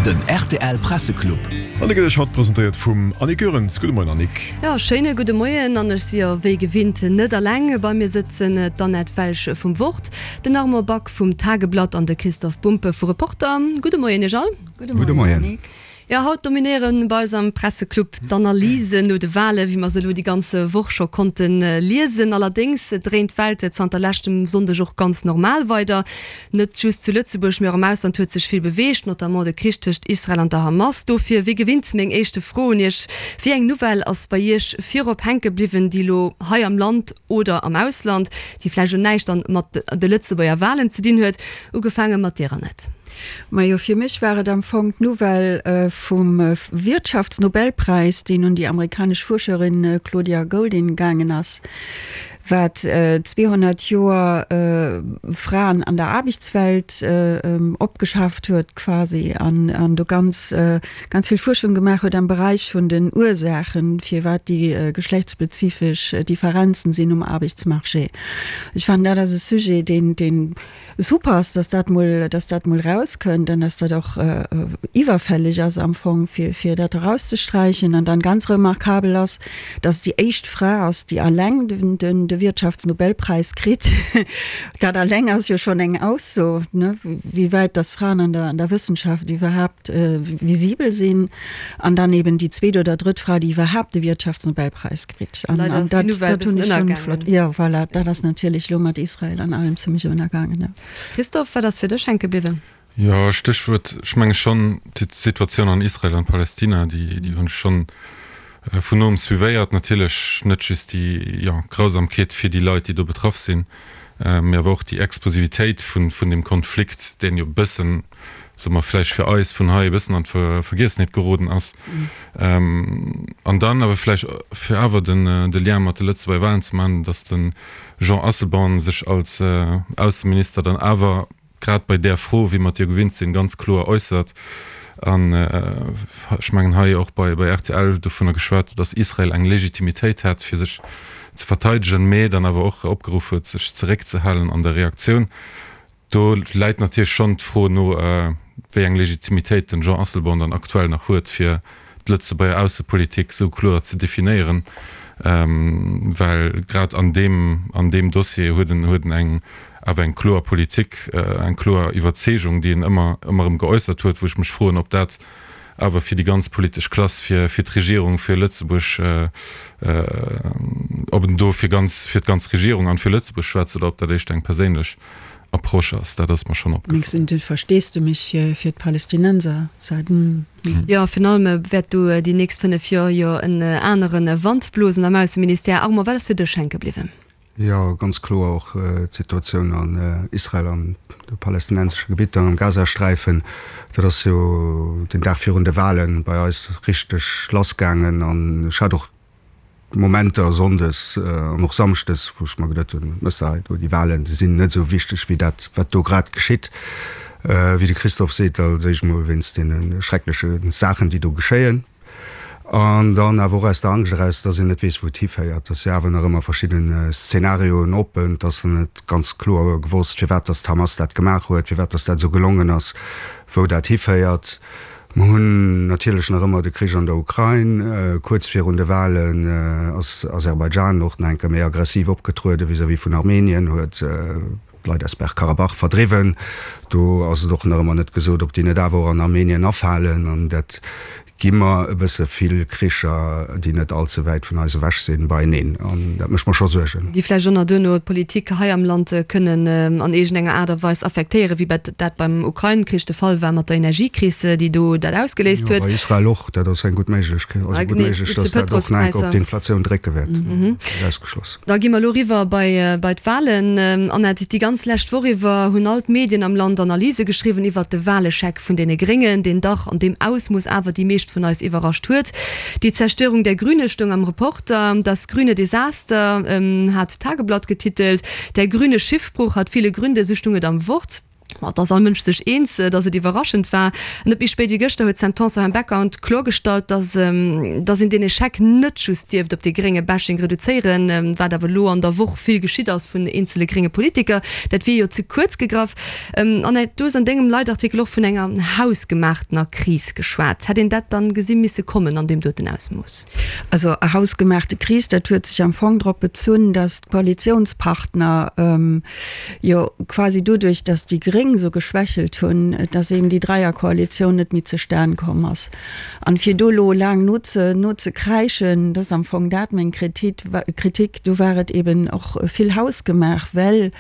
Den rtl Presseclub. An de gëtt Iech haut presentéiert vum Annick Goerens. Gudde Moien Annick. Jo, schéine gudde Moien an ech si jo wéi gewinnt net alleng. Bei mir sëtzen d'Annette Welsch vum Wort, den Armand Back vum Tageblatt an de Christoph Bumpe vu Reporter. Gudde Moien Iech all. Gudde Moien. Jo, haut dominéiere bei eis am Presseclub d'Analysen no de Walen, wéi mer se elo déi ganz Woch scho konnte liesen. Allerdéngs dréint d'Welt zanter leschtem Sonndeg och ganz normal weider. Net just zu Lëtzebuerg, mee och am Ausland huet sech vill beweegt, notamment de Krich tëscht Israel an der Hamas. Dofir, wéi gewinnt, meng éischte Fro un Iech, Wéi eng Nouvelle ass bei Iech virop hänke bliwwen, déi elo hei am Land oder am Ausland, déi vläicht elo näischt dann mat de Lëtzebuerger Walen ze dinn huet? Ugefaange mat dir, Annette. Majo, fir mech war et am Fong d'Nouvelle vum Wirtschaftsnobelpräis, deen un déi amerikanesch Fuerscherin Claudia Goldin gaangen ass, wat 200 Joer Fraen an der Aarbechtswelt opgeschaaft huet quasi an do ganz, ganz vill Fuerschung gemaach huet am Beräich vun den Ursaachen, firwat déi geschlechtsspezifesch Differenzen sinn um Aarbechtsmarché. Ech fannen, dat ass e Sujet, deen, deen Super ass, dass dat mol, dass dat mol rauskënnt an dass dat och iwwerfälleg ass am Fong, fir, fir dat erauszesträichen. An dann ganz remarkabel ass, dass et déi éischt Fra ass, déi alleng den, den, de Wirtschaftsnobelpräis kritt. Dat alleng ass jo schonn eng Ausso, ne, wéi wäit dass Fraen an der, an der Wëssenschaft iwwerhaapt visibel sinn. An dann eben déi zweet oder drëtt Fra, déi iwwerhaapt de Wirtschaftsnobelpräis kritt. An, Leider an ass déi dat, Nouvelle e dat hunn bëssen ech schonn ënnergaangen. flott. Jo, voilà, dat ass natierlech elo mat Israel an allem zimmlech ënnergaangen, jo. Christophe, wat ass fir dech hänke bliwwen? Jo, Stéchwuert, ech menge schonn d'Situatioun an Israel an Palästina, déi, déi hunn ech schonn vun noem suivéiert. Natierlech net just déi, jo, Grausamkeet fir déi Leit, déi do betraff sinn, mee awer och déi Explosivitéit vun, vun deem Konflikt, deen jo e bëssen, soe mer, vläicht fir eis vun hei e bëssen an d'Vergiessenheet geroden ass. An dann awer vläicht, fir awer den de Lien mat de Lëtzebuerger Wahlen ze maachen, datt de Jean Asselborn sech als Ausseminister dann awer grad bei där Fro, wéi mer et jo gewinnt sinn, ganz kloer äussert an ech mengen hei och bei rtl dovunner geschwat huet, datt Israel eng Legitimitéit hätt, fir sech ze verteidegen, mä dann awer och opgeruff huet, sech zeréckzehalen an der Reaktioun. Do läit natierlech schonn d'Fro no, wéi eng Legitimitéit den Jean Asselborn dann aktuell nach huet, fir d'Lëtzebuerger Aussepolitik esou kloer ze definéieren, well grad an deem, an deem Dossier huet en, huet en eng, awer eng kloer Politik, eng kloer Iwwerzeegung, déi en ëmmer, ëmmer erëm geäussert huet, wou ech mech froen, ob dat awer fir déi ganz politesch Klass, fir, fir d'Regierung, fir Lëtzebuerg, ob en do fir ganz, fir d'ganz Regierung an fir Lëtzebuerg schwätzt oder ob dat éischter eng perséinlech Approche ass, dat ass mer schonn opgefall. Mengs du, Versteesdemech fir, fir d'Palästinenser ze. Jo, virun allem wäert do déi nächst 5 Joer jo en anere Wand blosen am Ausseministère. Armand, wat ass fir dech hänke bliwwen? Jo, ganz kloer och d'Situatioun an Israel an de palästinensesche Gebitter, am Gazasträifen. Dat ass jo den Dag virun de Wahlen bei eis richteg lassgaangen an ech hat och Momenter sonndes an och samschdes, wou ech mer geduet hunn, Mëss hei do, déi Wahlen, déi sinn net esou wichteg wéi dat, wat do grad geschitt. Wéi de Christophe seet, als éischt mol wéinst deene schreckleche Saachen, déi do geschéien. An dann awer och aus der Angscht eraus, dass een net weess, wou et hiféiert. Et si awer nach ëmmer verschidden Szenarioen oppen. Et ass net ganz kloer gewosst, firwat dass d'Hamas dat gemaach huet, firwat dass dat esou gelongen ass, wou dat hiféiert. Mer hunn natierlech nach ëmmer de Krich an der Ukrain. Kuerz virun de Wahlen ass Aserbaidschan och nach eng Kéier méi aggressiv opgetruede vis-à-vis vun Armenien, huet d'Leit aus Bergkarabach verdriwwen. Do ass et och nach ëmmer net gesot, ob déi net awer och an Armenien afalen. An dat gi mer e bësse vill Kricher, déi net all ze wäit vun eis ewech sinn, beieneen. An dat mécht mer scho Suergen. Déi vläicht och nach duerno d'Politik hei am Land kënnen an iergendenger Aart a Weis affektéieren, wéi dat beim Ukrain-Krich de Fall war mat der Energiekris, déi do dat ausgeléist Jo, huet. bei Israel och. Dat ass eng gutt Méiglechkeet, also gutt méiglech, datt dat och nach eng Kéier op d'Inflatioun drécke wäert. Net ausgeschloss. Da gi mer elo eriwwer bei bei d'Wahlen. Annette, déi ganz lescht Woch iwwer hunn all d'Medien am Land Analyse geschriwwen iwwert de Wahlechec vun deene Gréngen, deen dach an deem Ausmooss awer déi meescht vun eis iwwerrascht huet. Die Zerstörung der Grüne stoung am Reporter, Das grüne Desaster hat d'Tageblatt getitelt, Der grüne Schiffbruch hat viele Gründe, sou stoung et am Wort. Ma et ass all Mënsch sech eens, datt et iwwerraschend war. Net méi spéit wéi gëschter huet d'Sam Tanson am Background kloergestallt, datt datt een deen Echec net just dierft op dee grénge Bashing reduzéieren, wat awer elo an der Woch vill geschitt ass vun eenzele grénge Politiker. Dat wier jo ze kuerz gegraff. Annette, du hues an dengem Leitartikel och vun enger hausgemaachtener Kris geschwat. Hätt een dat dann gesi misse kommen an deem doten Ausmooss? Also hausgemaachte Kris, dat huet sech am Fong drop bezunn, datt d'Koalitiounspartner, jo quasi doduerch, datt déi Gréng esou geschwächelt hunn, datt eben déi Dräierkoalitioun net méi zustan komm ass. An fir do elo laang noze nozekräischen, dat ass am Fong dat meng Kritik, do war et eben och vill hausgemaach, well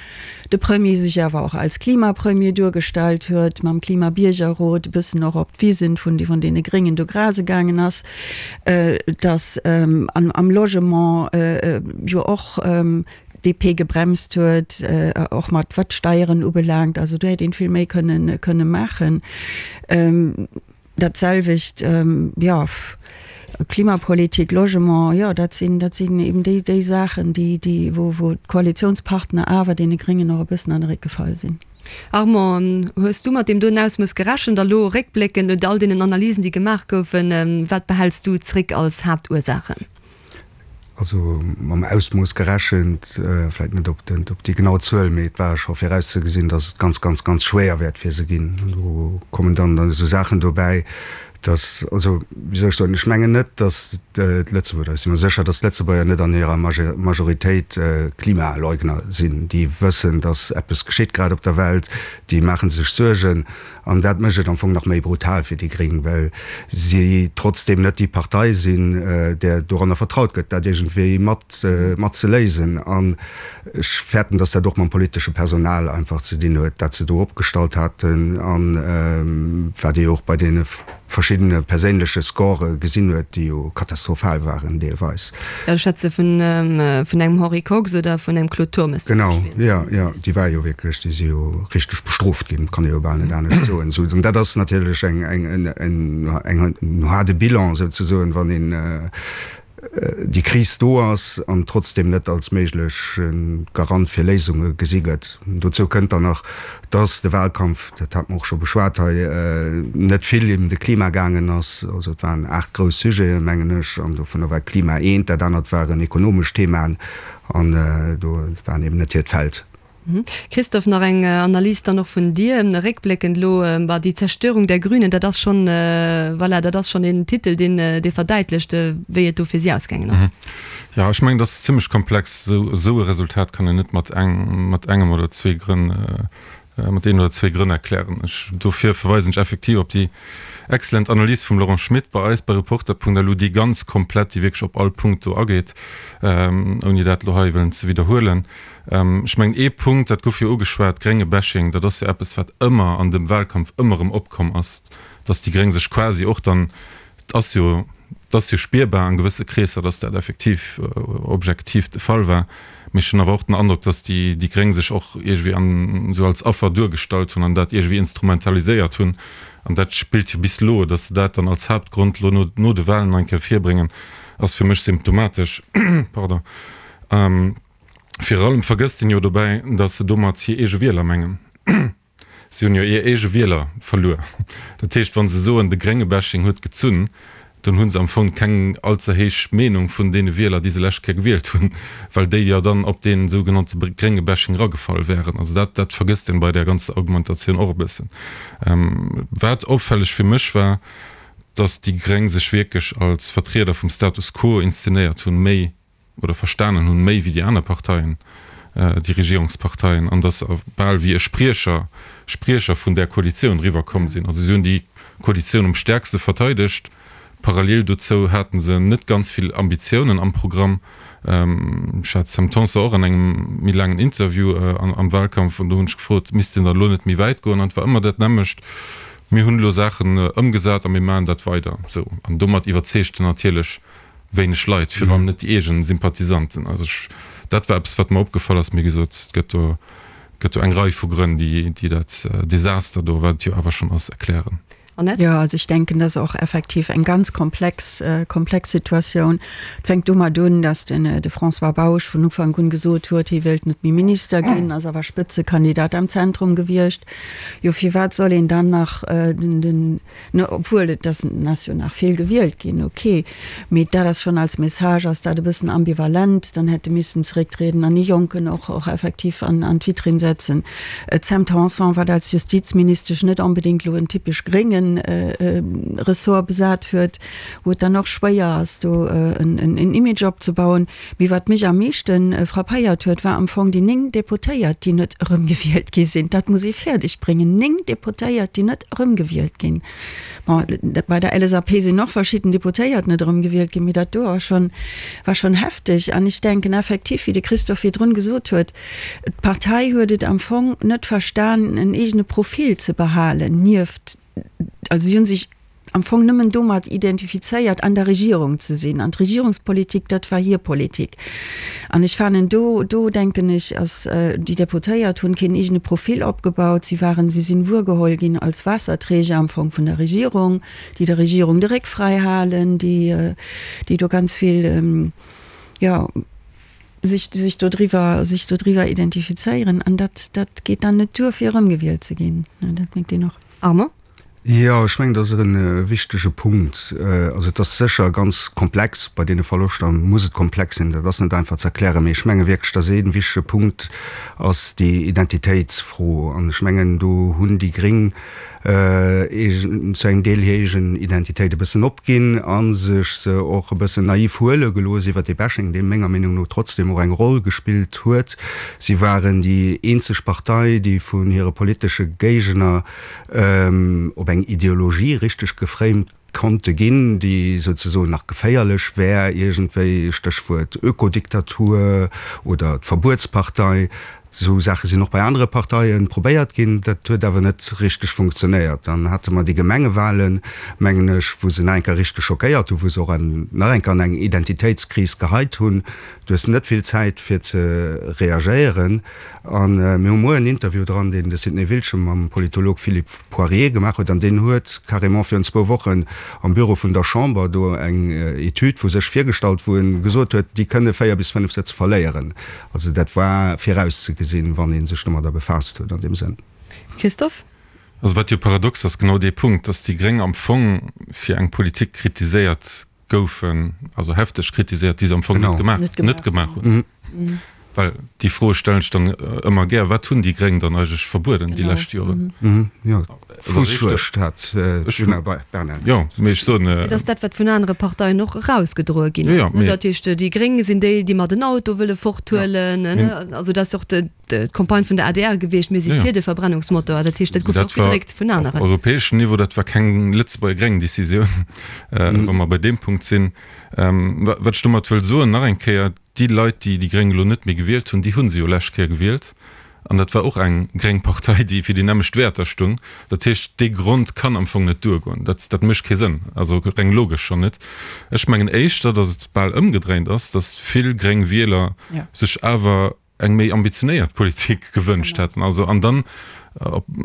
de Premier sech awer och als Klimapremier duergestallt huet, mam Klimabiergerrot e bëssen och op d'Wisen vun vun deene Gréngen do grase gaangen ass, datt am Logement jo och DP gebremst huet, och mat wat d'Steieren ubelaangt. Also do hätt een vill méi kënnen kënne maachen. Dat selwecht, jo, Klimapolitik, Logement, jo, dat sinn, dat sinn eben déi, déi Saachen, déi, déi, wou, wou d'Koalitionspartner awer deene Gréngen och e bëssen an de Réck gefall sinn. Armand, hues du mat deem doen Ausmooss gerechent? A lo réckbléckend no all deenen Analysen, déi gemaach goufen, wat behäls du zréck als Haaptursaachen? Also mam Ausmooss gerechent, vläicht net op den, op déi genau Zuel, mee et war scho virauszegesinn, datt et ganz, ganz, ganz schwéier wäert fir se ginn. An do kommen dann dann esou Saachen dobäi, datt, also wéi soll ech soen, ech mengen net, datt d'Lëtzebuerger, ech si mer sécher, datt d'Lëtzebuerger net an hirer Majoritéit Klimaleugner sinn. Déi wëssen, datt eppes geschitt grad op der Welt, déi maache sech Suergen. An dat mécht et am Fong nach méi brutal fir déi Gréng, well si trotzdeem net déi Partei sinn, där doranner vertraut gëtt, dat iergendwéi mat mat ze léisen. An ech fäerten, datt dat och mam politesche Personal einfach ze dinn huet, dat se do opgestallt haten an wat ee jo och bei deene verschiddene perséinleche Score gesinn huet, déi jo katastrophal waren deelweis. Jo, ech schwätze vun engem Henri Kox oder vun engem Claude Turmes zum Beispill. Genau, jo, jo, déi war jo wierklech, déi si jo richteg bestrooft ginn, kann ee jo bal net anescht soen. Esou, an dat ass natierlech eng, eng, eng, en haarde Bilan souzesoen, wann een déi Kris do ass an trotzdeem net als méigleche Garant fir Léisunge gesi gëtt. Dozou kënnt dann nach, dass de Wahlkampf, dat hate mer och scho beschwat hei, net vill ëm de Klima gaangen ass. Also et waren 8 grouss Sujeten, mengen ech, an dovunner war Klima eent, dat anert waren ekonomesch Themaen an do waren eben net hiert Feld. Christophe, nach eng Analys dann och vun dir, réckbléckend elo, bah, die Zerstörung der Grünen, dat ass schonn, voilà, dat ass schonn een Titel, deen, dee verdäitlecht, wéi et do fir si ausgaangen ass. Jo, ech mengen, dat ass zimlech komplex. Esou e Resultat kann een net mat eng, mat engem oder zwee Grënn, mat een oder zwee Grënn erklären. Ech, dofir verweisen ech effektiv op déi excellent Analys vum Laurent Schmit bei eis bei Reporter.lu, déi ganz komplett, déi wierklech op all Punkt do ageet, ouni dat elo hei wëllen ze widderhuelen. Ech mengen, ee Punkt, dat gouf jo ugeschwat, grénge Bashing, dat ass jo eppes, wat ëmmer an dem Wahlkampf ëmmer erëm opkomm ass, dass déi Gréng sech quasi och dann, et ass jo, et ass jo spierbar an gewësse Kreesser, dass dat effektiv objektiv de Fall war, mee ech hunn awer och den Androck, dass déi déi Gréng sech och iergendwéi an esou als Affer duergestallt hunn an dat iergendwéi instrumentaliséiert hunn. An dat spillt jo bis elo, dass se dat dann als Haaptgrond elo no no de Wahlen nach eng Kéier virbréngen, ass fir mech symptomatesch. Pardon. Virun allem vergësst een jo dobäi, datt se domat hir eege Wieler mengen. Si hunn jo hir eege Wieler verluer. Dat heescht, wa se soen, de grénge Bashing huet gezunn, dann hu se am Fong keng all ze héich Meenung vun deene Wieler, déi se lescht Kéier gewielt hunn, well déi jo dann op dee sougenannte grénge Bashing eragefall wären. Also dat, dat vergësst een bei där ganzer Argumentatioun och e bëssen. Wat opfälleg fir mech war, datt déi Gréng sech wierklech als Vertrieder vum Status quo inszenéiert hunn, méi oder verstanen hunn, méi wéi déi aner Parteien, déi Regierungsparteien, an datt se bal wéi e Spriecher, Spriecher vun där Koalitioun eriwwerkomm sinn. Also si hunn déi Koalitioun um stäerkste verteidegt. Parallel dozou hate se net ganz vill Ambitiounen am Programm. Ech hat d'Sam Tanson och an engem méi laangen Interview am Wahlkampf an do hunn ech gefrot, misst een dann elo net méi wäit goen? An et war ëmmer dat nämmlecht, Mir hunn elo Saachen ëmgesat a mir maachen dat weider esou. An domat iwwerzeegt en natierlech wéineg Leit, virun allem net déi eegen Sympathisanten. Also ech, dat war eppes, wat mer opgefall ass. Mee wéi gesot, et gëtt do, gëtt do eng Rei vu Grënn, déi, déi dat Desaster do, wat et jo awer schonn ass, erklären. Annette? Jo, also ech denken, dat ass och effektiv eng ganz komplex, komplex Situatioun. Et fänkt domat un, datt den de François Bausch vun Ufank un gesot huet, hie wéilt net méi Minister ginn, ass awer Spëtzekandidat am Zentrum gewiescht. Jo, firwat soll een dann nach den, den, Ne, obwuel et ass ass jo nach vill gewielt ginn, ok, mee dat ass schonn als Message ass dat e bëssen ambivalent. Dann hätt e missen zerécktrieden an ee Jonken och och effektiv an an d'Vitrinn setzen. D'Sam Tanson, wat als Justizministesch net onbedéngt elo en typesch grénge Ressort besat huet, wou et dann och schwéier ass do en en Image opzebauen. Mee wat mech am meeschte frappéiert huet, war am Fong déi 9 Deputéiert, déi net erëmgewielt gi sinn. Dat muss ee fäerdeg bréngen, 9 Deputéiert, déi net erëmgewielt ginn. Bon, bei der LSAP sinn och verschidden Deputéiert net erëmgewielt ginn, mee dat do ass schonn, war schonn hefteg. An ech denken effektiv, wéi de Christophe virdrun gesot huet, d'Partei huet et am Fong net verstan, en eegene Profil ze behalen nieft, also si hu sech, am Fong nëmmen domat identifizéiert, an der Regierung ze sinn. An d'Regierungspolitik, dat war hir Politik. An ech fanen, do, do denken ech, ass, déi Deputéiert hunn keen eegene Profil opgebaut. Si waren, si sinn wuergeholl ginn als Waasserträger am Fong vun der Regierung, déi der Regierung de Réck fräi halen, déi, déi do ganz vill, jo, sech, sech dodriwwer, sech dodriwwer identifizéieren. An dat, dat geet dann net duer, fir erëmgewielt ze ginn. Dat mierkt een och. Armand? Jo, ech mengen, dat ass e wichtege Punkt. Also et ass sécher ganz komplex, bei deene Verloschter muss et komplex sinn, dat ass net einfach ze erklären. Mee ech menge wierklech, datt ee wichtege Punkt ass déi Identitéitsfro. An ech mengen, do hunn déi Gréng zu engem Deel hir eegen Identitéit e bëssen opginn a sech se och e bëssen naiv huele gelooss iwwert dee Bashing, dee menger Meenung no trotzdem och eng Roll gespillt huet. Si waren déi eenzeg Partei, déi vun hire politesche Géigner op eng Ideologie richteg geframed konnte ginn, déi souzesoen nach geféierlech wär iergendwéi, Stéchwuert Ökodiktatur oder d'Verbuetspartei. Esou Saache sinn och bei anere Parteie probéiert ginn, dat huet awer net richteg funktionéiert. Dann hate mer déi Gemengewahlen, mengen ech, wou se nach eng Kéier richteg schockéiert hunn, wou se och nach eng Kéier an eng Identitéitskris geheit hunn. Du hues net vill Zäit fir ze reagéieren. A mir hu muer en Interview dran, deen de Sidney Wiltgen mam Politolog Philippe Poirier gemaach huet. An deen huet carrément virun zwou Wochen am Büro vun der Chamber do eng Etüd vu sech virgestallt, wou e gesot huet, déi kënne 4 bis 5 Sëtz verléieren. Also dat war virauszegesinn, wann ee sech domadder befaasst huet an deem Sënn. Christophe? Also wat jo paradox ass, genau dee Punkt, datt déi Gréng am Fong fir eng Politik kritiséiert goufen, also hefteg kritiséiert, déi se am Fong net gemaach, net gemaach hunn. Well déi Fro stellen ech dann ëmmer gär, Wat hunn déi Gréng dann eigentlech verbueden déi lescht Joren? Jo, d'Fussschluecht hat d'Djuna Bernard. Jo, mee ech soen. Et ass dat, wat vun anere Parteien och erausgedroe ginn ass. Dat heescht, déi Gréng sinn déi, déi mer den Auto wëlle forthuelen. Also dat ass och d'Campagne vun der adr gewiescht, mir si fir de Verbrennungsmotor. Dat heescht, dat gouf och gedréckt vun aneren. Op europäeschem Niveau, dat war keng Lëtzebuerger gréng Decisioun, wa mer bei deem Punkt sinn. Wat ech domat wëll soen, nach eng Kéier, Déi Leit, déi déi Gréng elo net méi gewielt hunn, déi hu se jo lescht Kéier gewielt. An dat war och eng gréng Partei, déi fir déi nämmlecht Wäerter stung. Dat heescht, dee Grond kann am Fong net duergoen. Dat, dat mécht kee Sënn, also reng logesch schonn net. Ech mengen éischter, datt et bal ëmgedréint ass, datt vill gréng Wieler sech awer eng méi ambitionéiert Politik gewënscht hätten. Also, an dann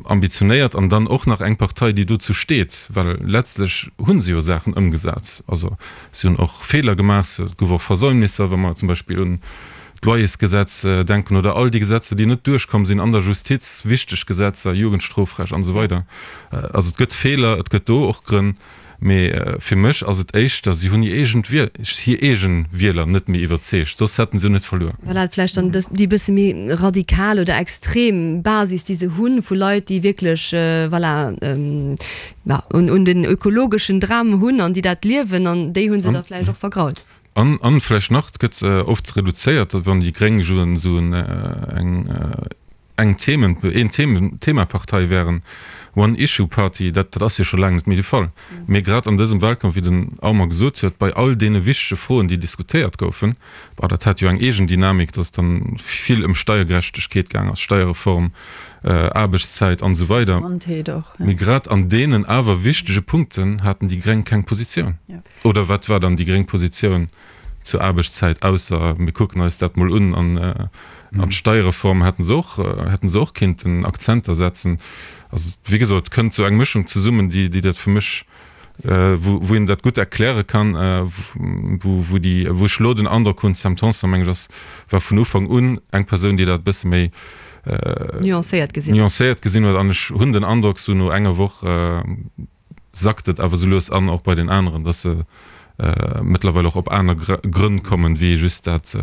ambitionéiert an dann och nach eng Partei, déi dozou steet, well letztlech hu se jo Saachen ëmgesat. Also si hunn och Feeler gemaach, et gouf och Versäumnisser, wa mer zum Beispill un d'Loyersgesetz denken oder all déi Gesetzer, déi net duerchkomm sinn an der Justiz, wichteg Gesetzer, Jugendstrofrecht an esou weider. Also et gëtt Feeler, et gëtt do och Grënn, mee fir mech ass et éischter, si hunn hir eegen Wiel, hir eege Wieler net méi iwwerzeegt, soss hätten se jo net verluer. Voilà, vläicht dann déi bësse méi radikal oder extrem Basis, déi se hunn, vu Leit, déi wierklech, voilà, un den ökologeschen Dram hunn an déi dat liewen, an déi hu se da vläicht och vergrault. An, an vläicht nach, et gëtt oft reduzéiert, wann déi Gréng esou eng, eng Themen, een Themen, Themapartei wären, One Issue Party, dat, dat ass jo scho laang net méi de Fall. Mee grad an dësem Wahlkampf, wéi den Armand gesot huet, bei all deene wichtege Froen, déi diskutéiert goufen, bah, dat hat jo eng eegen Dynamik, dass et dann vill ëm Steiergerechtegkeet gaang ass, Steierreform, Aarbechtszäit an esou weider. Gesondheet och, ja. Mee grad an deenen awer wichtege Punkten haten déi Gréng keng Positioun. Oder wat war dann déi gréng Positioun zur Aarbechtszäit, ausser mir kucken eis dat mol un an an d'Steierreform hätten se och, hätten se och kinnten Akzenter setzen. Also wéi gesot, et kënnt esou eng Mëschung zesummen, déi déi dat fir mech, wou wou een dat gutt erkläre kann, wou wou déi wou ech elo den Androck hunn, Sam Tanson meng ech ass war vun Ufank un eng Persoun, déi dat e bësse méi nuancéiert gesinn nuancéiert gesinn huet an ech hunn den Androck esou no enger Woch sackt et awer esou lues an och bei den aneren, dass se mëttlerweil och op aner Grënn kommen, wéi just dat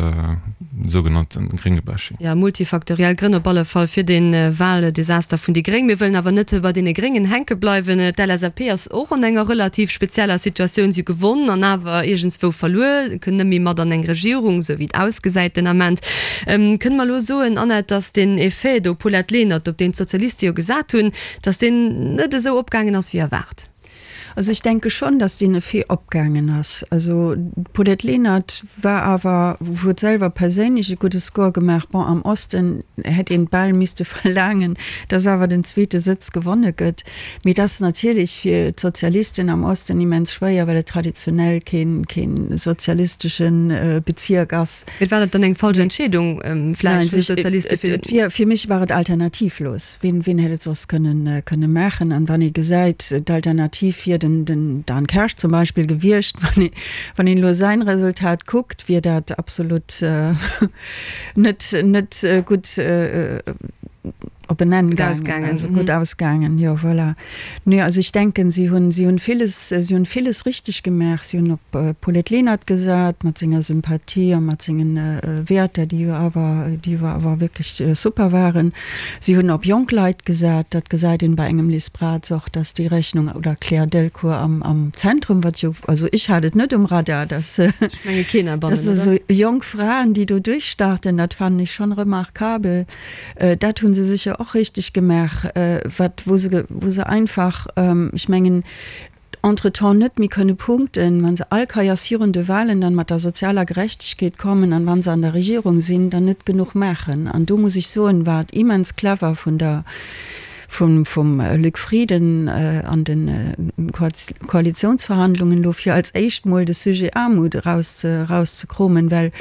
sougenannte Gréngebashing. Jo, multifaktoriell Grënn op alle Fall fir dee Wahldesaster vun déi Gréng. Mir wëllen awer net bei deene Gréngen hänke bleiwen. D'LSAP ass och an enger relativ spezieller Situatioun. Si hu gewonn an awer iergendswou verluer, kënn net méi mat an eng Regierung, esou wéi et ausgesäit den Ament. Kënne mer elo soen, Annette, datt deen Effet do Paulette Lenert, op deen d'Sozialiste jo gesat hunn, Dass deen net esou opgaangen ass wéi erwaart. Also ech denke schonn, dass deen Effet opgaangen ass. Also d'Paulette Lenert war awer, huet selwer perséinlech e gudde Score gemaach. Bon, am Osten hätt een bal misste verlaangen, dass awer den zweete Sëtz gewonne gëtt. Mee et ass natierlech fir d'Sozialisten am Osten immens schwéier, well et traditionell kee kee sozialistesche Bezierk ass. Mee war dat dann eng falsch Entscheedung vläicht vun de Sozialiste fir. Et wier, fir mech war et alternativlos. Wien, wien hätt et soss kënnen, kënne maachen? An wann ee gesäit, d'Alternativ wier den, den Dan Kersch zum Beispill gewiescht, wann ee, wann een elo säin Resultat kuckt, wier dat absolut net, net gutt op en Enn gaangen, also gutt ausgaangen, jo, voilà. Nee, also ech denken, si hunn, si hunn villes, si hunn villes richteg gemaach. Si hunn op d'Paulette Lenert gesat, mat senger Sympathie a mat sengen Wäerter, déi jo awer, déi jo awer wierklech super waren. Si hunn op jonk Leit gesat, dat gesäit een bei engem Liz Braz och, dass déi Rechnung, oder Claire Delcourt am, am Zentrum, wat jo, also ech hat et net um Radar, dass, Ech menge keen heibannen, dass esou jonk Fraen, déi do duerchstarten, dat fannen ech schonn remarkabel. Dat hu se sécher och richteg gemaach, wat, wou se, wou se einfach, ech mengen, entretemps net méi kënne punkten, wa se all Keiers virun de Wahlen dann mat der sozialer Gerechtegkeet kommen an wa se an der Regierung sinn, dann net genuch maachen. An do muss ech soen, war et immens clever vun der, vum, vum Luc Frieden an de Koalitionsverhandlungen elo, fir als éischt mol de Sujet Aarmut eraus, erauszekromen, well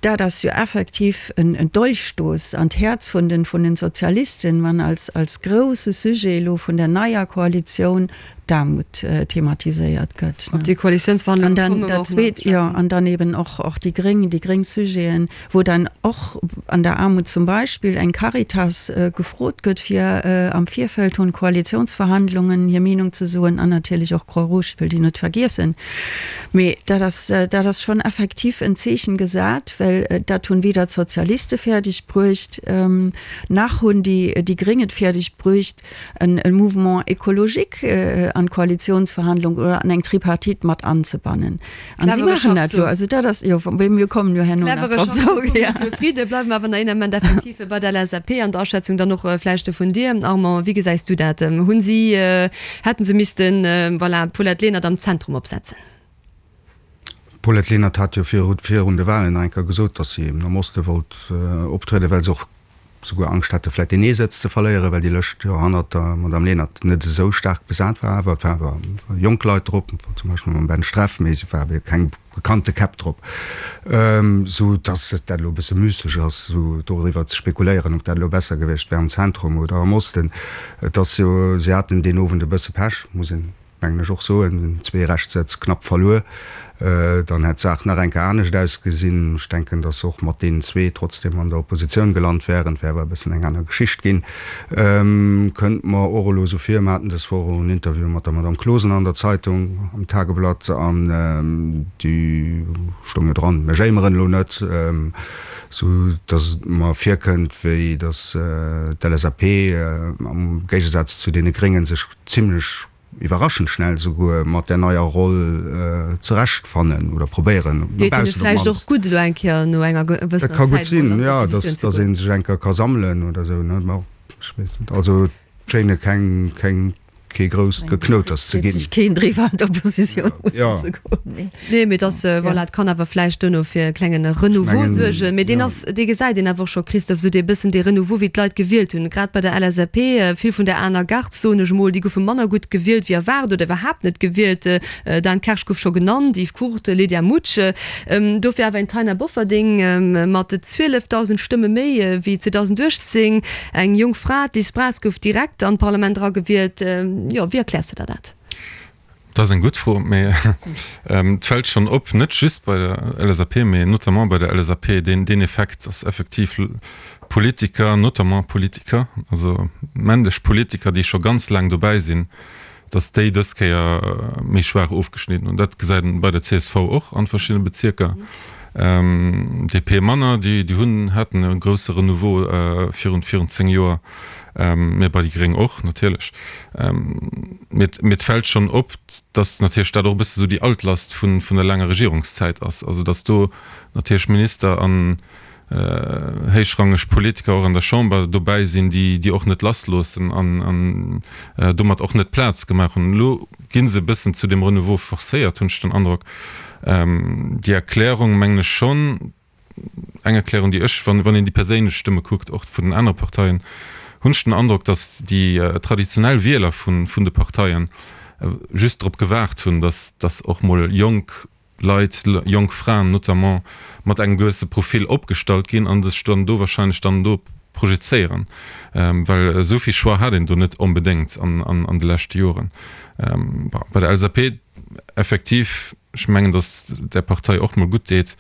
Dat ass jo effektiv en Dolchstoß an d'Häerz vun den vun den Sozialisten, wann als als grousse Sujet elo vun der neier Koalitioun d'Aarmut thematiséiert gëtt. Op déi Koalitiounsverhandlunge komme mer och nach ze schwätzen. Jo, an dann eben och och déi gréng, déi gréng Sujeten, wou dann och an der Aarmut zum Beispill eng Caritas gefrot gëtt, fir am Virfeld vun Koalitiounsverhandlungen hir Meenung ze soen, an natierlech och Croix-Rouge, wëll déi net vergiessen. Mee dat ass, dat ass schonn effektiv en Zeechen gesat, well dat hunn weder d'Sozialiste fäerdeg bruecht, nach hunn déi, déi Gréng et fäerdeg bruecht, en Mouvement écologique an d'Koalitionsverhandlung oder an eng Tripartite mat anzebannen. An si maachen dat elo. Also dat ass, jo, mee mir kommen jo herno nach drop zrëck. Clevere Friede. Bleiwe mer awer nach een Ament effektiv bei der LSAP an der Aschätzung dann och vläicht vun dir, Armand. Wéi gesäis du dat? Hunn si Hätten se missten, voilà, d'Paulette Lenert am Zentrum opsetzen. D'Paulette Lenert hat jo virun de Wahlen nach eng Kéier gesot, datt si am Oste wollt optrieden, well se och souguer Angscht hate vläicht deen ee Sëtz ze verléieren, well déi Lëscht jo hannert der Madame Lenert net esou staark besat war. Awer et waren awer jonk Leit drop, zum Beispill mam Ben Streff, mee se war keng bekannte Käpp drop, sou dass dat elo e bësse müsseg ass, sou doriwwer ze spekuléieren, ob dat elo besser gewiescht wär am Zentrum oder am Osten. Et ass jo, si haten deen Owend e bësse Pech, muss een, mengen ech, och soen, zwee Rechtssëtz knapp verluer. Dann hätt d'Saach nach eng Kéier anescht ausgesinn. Ech denken, dass se och mat deenen zwee trotzdem an der Oppositioun gelant wären. Et wär awer e bëssen eng aner Geschicht ginn. Kënnt mer och elo esou vir, mer haten dës Woch och en Interview mat der Madame Closener an der Zeitung, am Tageblatt, an déi stoung jo dran, mir jéimeren elo net, sou datt et mer virkënnt, wéi datt d'LSAP am Géigesaz zu deene Gréngen sech zimlech iwwerraschend schnell souguer mat där neier Roll zurecht fannen oder probéieren no Deet hinne baussen op vläicht och d'mannst. gutt elo eng Kéier no enger Dat gewëssener ka gutt Zäit mol sinn, an jo, d'Oppositioun dass ze dass goen. ee sech eng Kéier ka sammelen oder esou, ne? Bon, ech weess net. Also et schéine keng, keng. kee grousst Geknouters ze ginn. Freet sech keen driwwer an d'Oppositioun mussen ze goen, mee. Nee, mee dass, voilà, et kann awer vläicht duerno fir e klenge Renouveau suergen. Mee deen ass, dee gesäit een awer och scho, Christophe, esou dee bëssen dee Renouveau, wéi d'Leit gewielt hunn. Grad bei der LSAP, vill vun der aner Garde, soen ech emol, déi goufe manner gutt gewielt wéi erwaart oder iwwerhaapt net gewielt. Dan Kersch gouf scho genannt, Yves Curt, Lydia Mutsch. Dofir awer een Taina Bofferding mat 12.000 Stëmme méi wéi 2018. Eng jonk Fra, d'Liz Braz, gouf direkt an d'Parlament eragewielt. Jo, wéi erkläers de der dat? Dat ass eng gutt Fro, mee et fält schonn op, net just bei der LSAP, mee notamment bei der LSAP, deen deen Effekt, dass effektiv Politiker, notamment Politiker, also männlech Politiker, déi scho ganz laang dobäi sinn, dass déi dës Kéier méi schwaach ofgeschnidden hunn. Dat gesäit een bei der csv och an verschiddene Bezierker. DP manner, déi hunn, haten e grousse Renouveau virun, virun 10 Joer, mä bei déi Gréng och natierlech. Mee, mee et fält schonn op, dass natierlech dat och e bësse sou déi Altlast vun, vun der laanger Regierungszäit ass. Also dass do natierlech Minister an, héichrangeg Politiker och an der Chamber dobäi sinn, déi déi och net lassloossen an domat och net Plaz gemaach hunn. Elo gi se e bëssen zu dem Renouveau forcéiert, hunn ech den Androck. Déi Erklärung, mengen ech schonn, eng Erklärung, déi ech, wann een déi perséinlech Stëmme kuckt, och vun den anere Parteien, hunn ech den Androck, datt déi traditionell Wieler vun de Parteien just drop gewaart hunn, datt datt och mol jonk Leit, jonk Fraen notamment, mat engem gewësse Profil opgestallt ginn an sech dann do wahrscheinlech dann do projezéieren, well esou vill Choix hat een do net onbedéngt an de leschte Joren. Bei der LSAP effektiv, ech mengen, datt där Partei och mol gutt deet,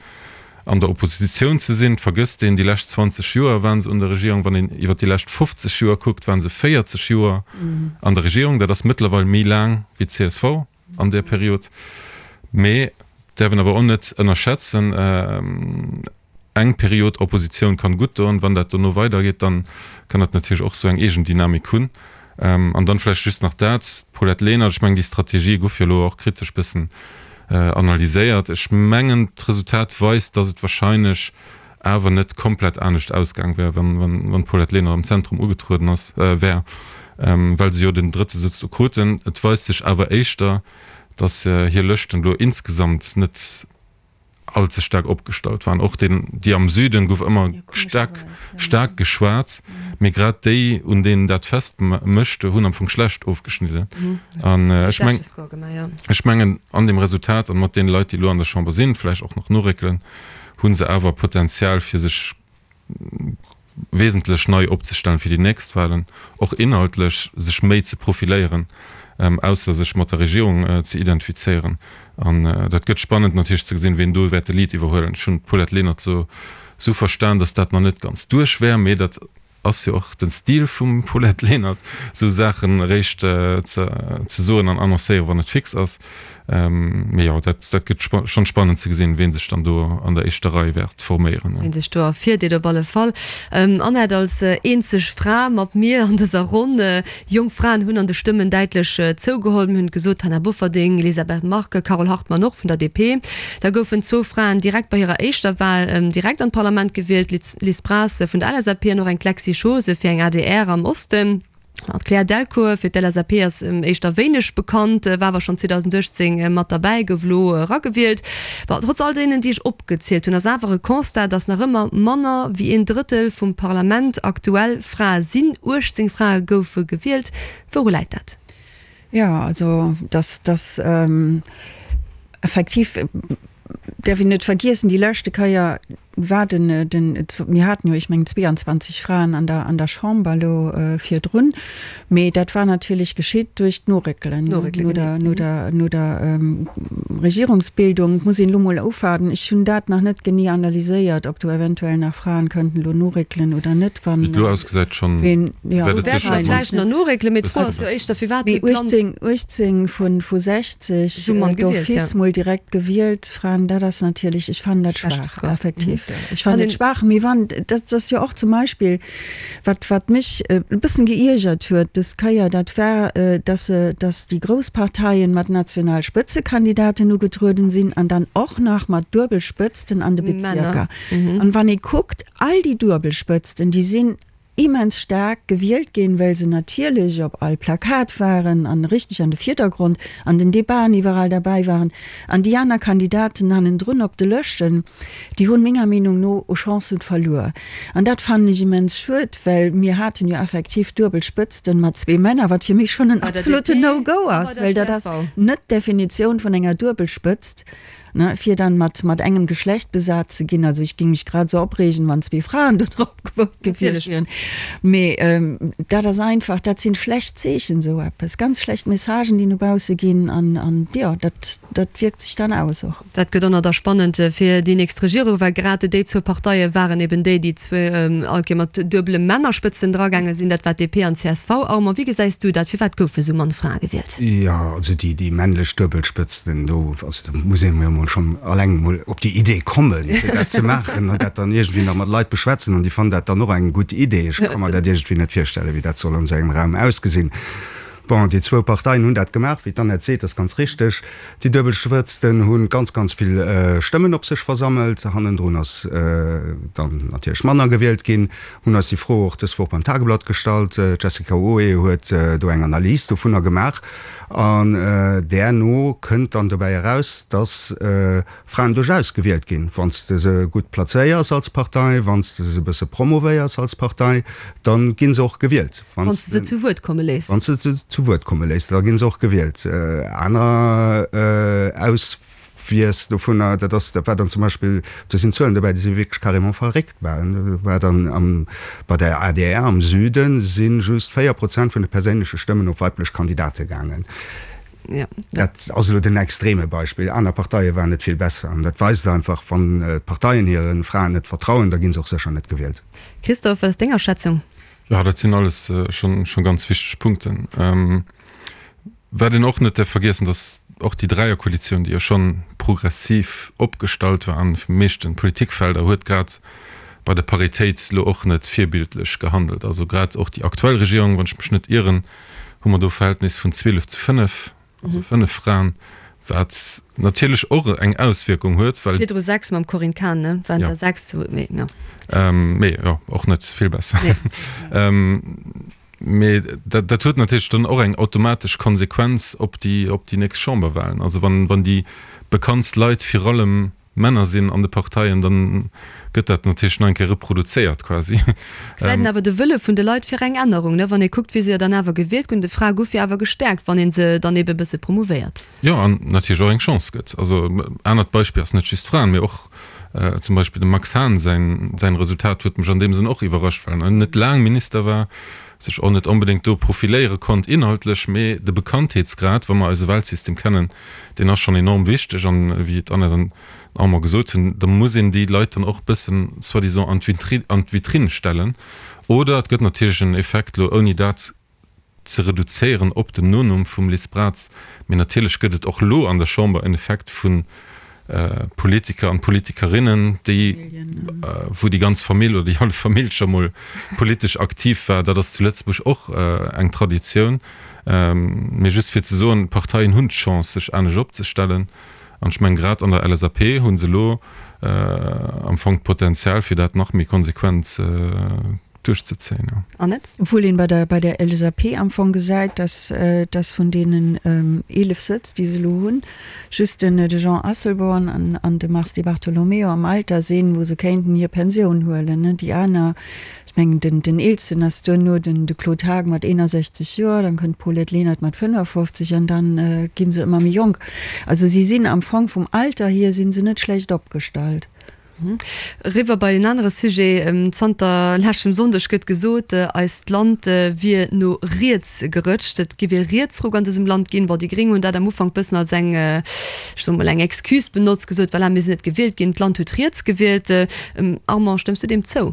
an der Oppositioun ze sinn. Vergësst een, déi lescht 20 Joer waren se un der Regierung. Wann een iwwer déi lescht 50 Joer kuckt, waren se 40 Joer an der Regierung. Dat ass mëttlerweil méi laang wéi d'CSV. an där Period. Mee däerf een awer och net ënnerschätzen, eng Period Oppositioun kann gutt doen. Wann dat dono weidergeet, dann kann dat natierlech och esou eng eegen Dynamik hunn. An dann vläicht just nach dat, d'Paulette Lenert, ech mengen déi Strategie gouf jo elo och kritesch bëssen analyséiert. Ech mengen d'Resultat weist, datt et wahrscheinlech awer net komplett anescht ausgaang wär, wann d'Paulette Lenert am Zentrum ugetrueden ass, wär, well se jo den drëtte Sëtz do kruten. Et weist sech awer éischter, datt hir Lëschten elo insgesamt net all ze staark opgestallt waren. Och deen, déi am Süden gouf ëmmer staark, staark geschwat, mee grad déi, un deenen dat fest mécht, hunn am Fong schlecht ofgeschnidden. An ech meng, ech mengen, an deem Resultat an mat deene Leit, déi elo an der Chamber sinn, vläicht och nach noréckelen, hu se awer Potenzial fir sech wesentlech nei opzestellen fir déi nächst Wahlen, och inhaltlech sech méi ze profiléieren, ausser sech mat der Regierung ze identifizéieren. An dat gëtt spannend natierlech ze gesinn, ween do wäert de Lead iwwerhuelen. Ech hunn d'Paulette Lenert esou verstan, datt dat nach net ganz duerch wär, mee dat Ass jo och den Stil vum Paulette Lenert, sou Saachen eréischt ze soen an annoncéieren, wann et fix ass. Mee jo, dat gëtt schonn spannend ze gesinn, ween sech dann do an der éischter Rei wäert forméieren. Ween sech do ervirdeet op alle Fall. Annette, als eenzeg Fra mat mir an dëser Ronn. Jonk Fraen hunn an de Stëmmen däitlech zougeholl. Mir hunn et gesot, Taina Bofferding, Elisabeth Margue, Carole Hartmann och vun der DP. Da goufen zwou Fraen direkt bei hirer éischter Wal direkt an d'Parlament gewielt, Liz Braz vun der LSAP an och eng d'Lexy Schose fir eng adr am Osten. D'Claire Delcourt fir d'LSAP ass éischter wéineg bekannt, war awer schonn 2018 mat derbäi, gouf elo eragewielt. Bon, trotz all deenen, déi ech opgezielt hunn, ass awer e Constat, datt nach ëmmer manner wéi een Drëttel vum Parlament aktuell Frae sinn. 18 Frae goufe gewielt. Wouru läit dat? Jo, also dass, dass effektiv, däerf een net vergiessen, déi leschte Keier war den, den, mir haten jo, ech mengen 22 Fraen an der, an der Chamber elo virdrun, mee dat war natierlech geschitt duerch d'Noréckelen no der, no der, no der Regierungsbildung. Et muss een elo mol ofwaarden, ech hunn dat nach net genee analyséiert, ob do eventuell nach Fraen kënnten elo noréckelen oder net, wann. Wéi et elo ausgesäit schonn. Jo, do wäerte mer vläicht nach noréckelen, mee d'Fro ass jo éischter, firwat huet d'Land. Mee 18, 18 vu 60 d'office mol direkt gewielt Fraen, dat ass natierlech, ech fannen dat schwaach, effektiv. Ech fannen et schwaach, mee wann, dat ass jo och zum Beispill, wat, wat mech e bëssen geiergert huet dës Kéier, dat war, dass se, dass déi grouss Parteien mat national Spëtzekandidaten ugetrueden sinn an dann och nach mat Duebelspëtzten an de Bezierker. An wann ee kuckt, all déi Duebelspëtzten, déi sinn. immens staark gewielt ginn, well se natierlech op all Plakat waren an richteg an de Virdergrond an den Debaten iwwerall derbäi waren. An déi aner Kandidaten hannendrun op de Lëschten, déi hunn menger Meenung no u Chancen verluer. An dat fannen ech immens schued, well mir haten jo effektiv duebel Spëtzten mat zwee Männer, wat fir mech schonn en absoluten No-Go ass, well dat ass net d'Definitioun vun enger Duebelspëtzt. Ne, fir dann mat, mat engem Geschlecht besat ze ginn. Also ech ging mech grad esou opreegen, wann zwee Fraen do drop gevote gewiescht wieren. Mee dat ass einfach, dat sinn schlecht Zeechen, esou eppes, ganz schlecht Messagen, déi no bausse ginn an, an jo, dat, dat wierkt sech dann aus och. Dat gëtt och nach da spannend fir déi nächst Regierung, well grad déi zwou Parteie waren eben déi, déi zwou all Kéier mat duebele Männerspëtzen dragaange sinn. Dat war DP an csv. Armand, wéi gesäis du dat? Firwat goufe sou mann Frae gewielt? Jo, also déi, déi männlech Duebelspëtzen do, also do muss ee jo mol schonn alleng mol op déi Idee kommen, fir dat ze maachen an dat dann iergendwéi nach mat Leit beschwätzen an déi fannen dat dann och eng gutt Idee. Ech ka mer dat iergendwéi net virstellen, wéi dat soll an esou engem Raum ausgesinn. Bon, déi zwou Parteien hunn dat gemaach, wéi d'Annette seet, ass ganz richteg. Déi Duebelspëtzten hu ganz, ganz vill Stëmmen op sech versammelt. Hannendrun ass dann natierlech manner gewielt ginn. Hunn eis déi Fro och dës Woch beim Tageblatt gestallt. D'Jessica Oé huet do eng Analys dovunner gemaach an där no kënnt dann dobäi eraus, datt Fraen duerchaus gewielt ginn. Wann s de se gutt plazéiers als Partei, wann s de se e bësse promovéiers als Partei, da gi se och gewielt. Wann s de se zu Wuert komme léiss. Wann s de se zu Wuert komme léiss, da gi se och gewielt. Aner Aus. Wies dovunner, dat ass, dat war dann zum Beispill, do sinn Zuelen dobäi, déi si wierklech carrément verréckt waren. Do war dann am, bei der adr am Süde si just 4 Prozent vun de perséinleche Stëmmen op weiblech Kandidate gaangen. Dat ass elo den extreme Beispill. Aner Parteie waren net vill besser. An dat weist einfach, wann d'Parteien hire Fraen net vertrauen, da gi se och sécher net gewielt. Christophe, wat ass deng Aschätzung? Jo, dat sinn alles schonn ganz wichteg Punkten. Wat een och net däerf vergiessen, datt och déi Dräierkoalitioun, déi jo schonn progressiv opgestallt war an de meeschten Politikfelder, huet grad bei der Paritéit elo och net virbildlech gehandelt. Also grad och déi aktuell Regierung, wann ech mech net ieren, hu mer do e Verhältnis vun 12 zu 5, also 5 Fraen, wat natierlech och eng Auswierkung huet, well. Virdru 6 mam Corinne Cahen, ne? Waren der 6, mee jo. Mee jo, och net vill besser. Nee. Mee dat, dat huet natierlech dann och eng automatesch Konsequenz op déi, op déi nächst Chamberwahlen. Also wann, wann déi bekanntst Leit virallem Männer sinn an de Parteien, dann gëtt dat natierlech nach eng Kéier reproduzéiert quasi. Gesäit een awer de Wëlle vun de Leit fir eng Ännerung, ne? Wann ee kuckt, wéi se jo dann awer gewielt ginn. D'Frae gouf jo awer gestäerkt, wann ee se dann ebe e bësse promouvéiert. Jo, an natierlech och eng Chance gëtt. Also anert Beispill ass net just Fraen, mee och zum Beispill dem Max Hahn säin säin Resultat huet mech an deem Sënn och iwwerrascht, well en net laang Minister war, sech och net onbedéngt do profiléiere konnt inhaltlech, mee de Bekanntheetsgrad, wa mer eise Wahlsystem kennen, deen ass schonn enorm wichteg. An wéi d'Annette an den Armand gesot hunn, da muss een déi Leit dann och e bëssen soi-disant an d'Vitri an d'Vitrine stellen. Oder et gëtt natierlech en Effekt elo, ouni dat ze reduzéieren op den Nonumm vum Liz Braz, mee natierlech gëtt et och elo an der Chamber en Effekt vu Politiker an Politikerinnen, déi, wou déi ganz Famill oder déi hallef Famill scho mol politesch aktiv war. Dat ass zu Lëtzebuerg och eng Traditioun. Mee just fir ze soen, d'Parteien hunn d'Chance, sech anescht opzestellen. An ech mengen, grad an der LSAP hu se elo am Fong d'Potenzial, fir dat nach méi konsequent duerchzezéien, jo. Annette? Obwuel een bei der, bei der LSAP am Fong gesäit, dass, dass vun deenen 11 Sëtz, déi se elo hunn, just den, de Jean Asselborn an, an de Mars Di Bartolomeo am Alter sinn, wou se kéinten hir Pensioun huelen, ne. Déi aner, ech mengen, den, den eelsten ass duerno den, de Claude Haagen mat 61 Joer, dann kënnt d'Paulette Lenert mat 55 an dann gi se ëmmer méi jonk. Also si sinn am Fong vum Alter hier si se net schlecht opgestallt. Eriwwer bei en anere Sujet, Zanter leschtem Sonndeg gëtt gesot, eist Land wier no riets gerëtscht. Et giff ee Rietsruck an dësem Land ginn. Bon, déi Gréng hunn dat am Ufank bëssen als eng, ech soe mol, eng Excuse benotzt, gesot, voilà, mir sinn net gewielt ginn, d'Land huet riets gewielt. Armand, stëmms du deem zou?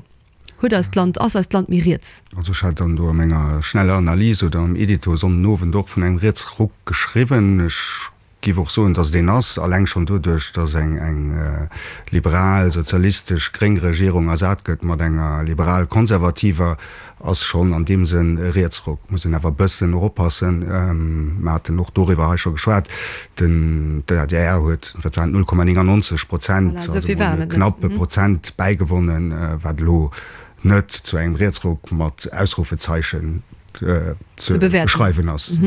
Huet eist Land, ass eist Land méi riets? Also ech hat dann do a menger schneller Analys oder am Edito Sonnenowend och vun engem Rietsruck geschriwwen. Ech Giff och soen, dass et een ass, alleng schonn doduerch, dass eng eng liberal, sozialistesch, gréng Regierung ersat gëtt mat enger liberal-konservativer, ass schonn an deem Sënn e Rietsruck. Muss een awer e bëssen och oppassen, mer haten och doriwwer hei scho geschwat, den d'ADR huet, wat waren et, 0,99 Prozent, also emol e knappe Prozent bäigewonnen, wat elo. net zu engem Rietsruck mat Ausrufezeichen ze beschreiwen ass.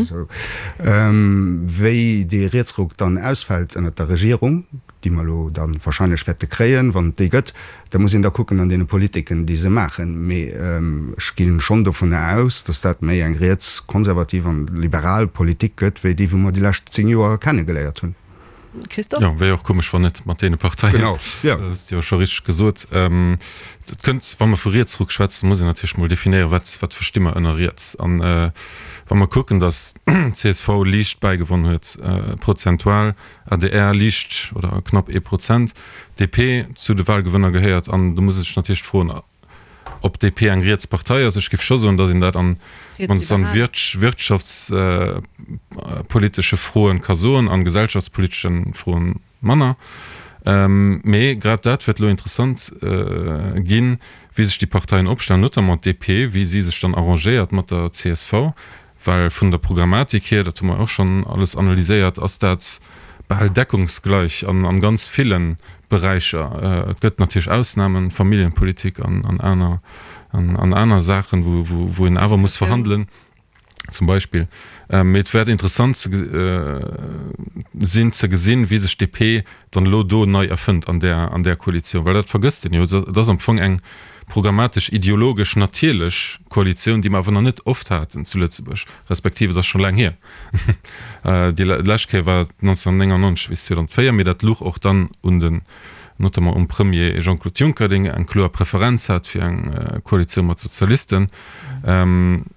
Wéi dee Rietsruck dann ausfält ënnert der Regierung, déi mer elo da wahrscheinlech wäerte kréien, wann et déi gëtt, da muss een da kucken an deene Politiken, déi se maachen. Mee ech gi schonn dovunner aus, datt dat méi eng rietskonservativ an liberal Politik gëtt, wéi déi, wou mer déi lescht 10 Joer kennegeléiert hunn. Christophe? Jo, wär jo och komesch, wann net mat deene Parteien. Genau, jo. Dat hues de jo scho richteg gesot. Et kënnt, wa mer vu Rietsruck schwätzen, muss een natierlech mol definéieren, wat, wat versti mer ënner riets. An wa mer kucken, datt csv liicht bäigewonn huet, prozentual, adr liicht oder knapp ee Prozent, DP zu de Wahlgewënner gehéiert, an do muss ee sech natierlech froen, Ob d'DP eng riets Partei ass? Ech géif scho soen, datt een dat an mannst an wirtschaftspolitesche Froen ka soen, an gesellschaftspoliteschen Froen manner. Mee grad dat wäert elo interessant ginn, wéi sech déi Parteien opstellen, notamment d'DP, wéi si sech dann arrangéiert mat der csv. Well vun der Programmatik hier, dat hu mer och schonn alles analyséiert, ass dat bal deckungsgleich an ganz ville Beräicher. Et gëtt natierlech Ausnamen, Familljenpolitik an aner an aner Saachen, wou een awer muss verhandelen zum Beispill. Mee et wäert interessant sinn ze gesinn, wéi sech d'DP dann elo do nei erfënnt an där an där Koalitioun, well dat vergësst een jo, et ass am Fong eng programmatesch, ideologesch natierlech Koalitioun, déi mer awer nach net oft haten zu Lëtzebuerg, respektiv et ass scho laang hier, déi lescht Kéier war 1999 bis 2004, mee dat luch och dann un den, notamment um Premier Jean-Claude Juncker, deen eng kloer Preferenz hat fir eng Koalitioun mat Sozialisten.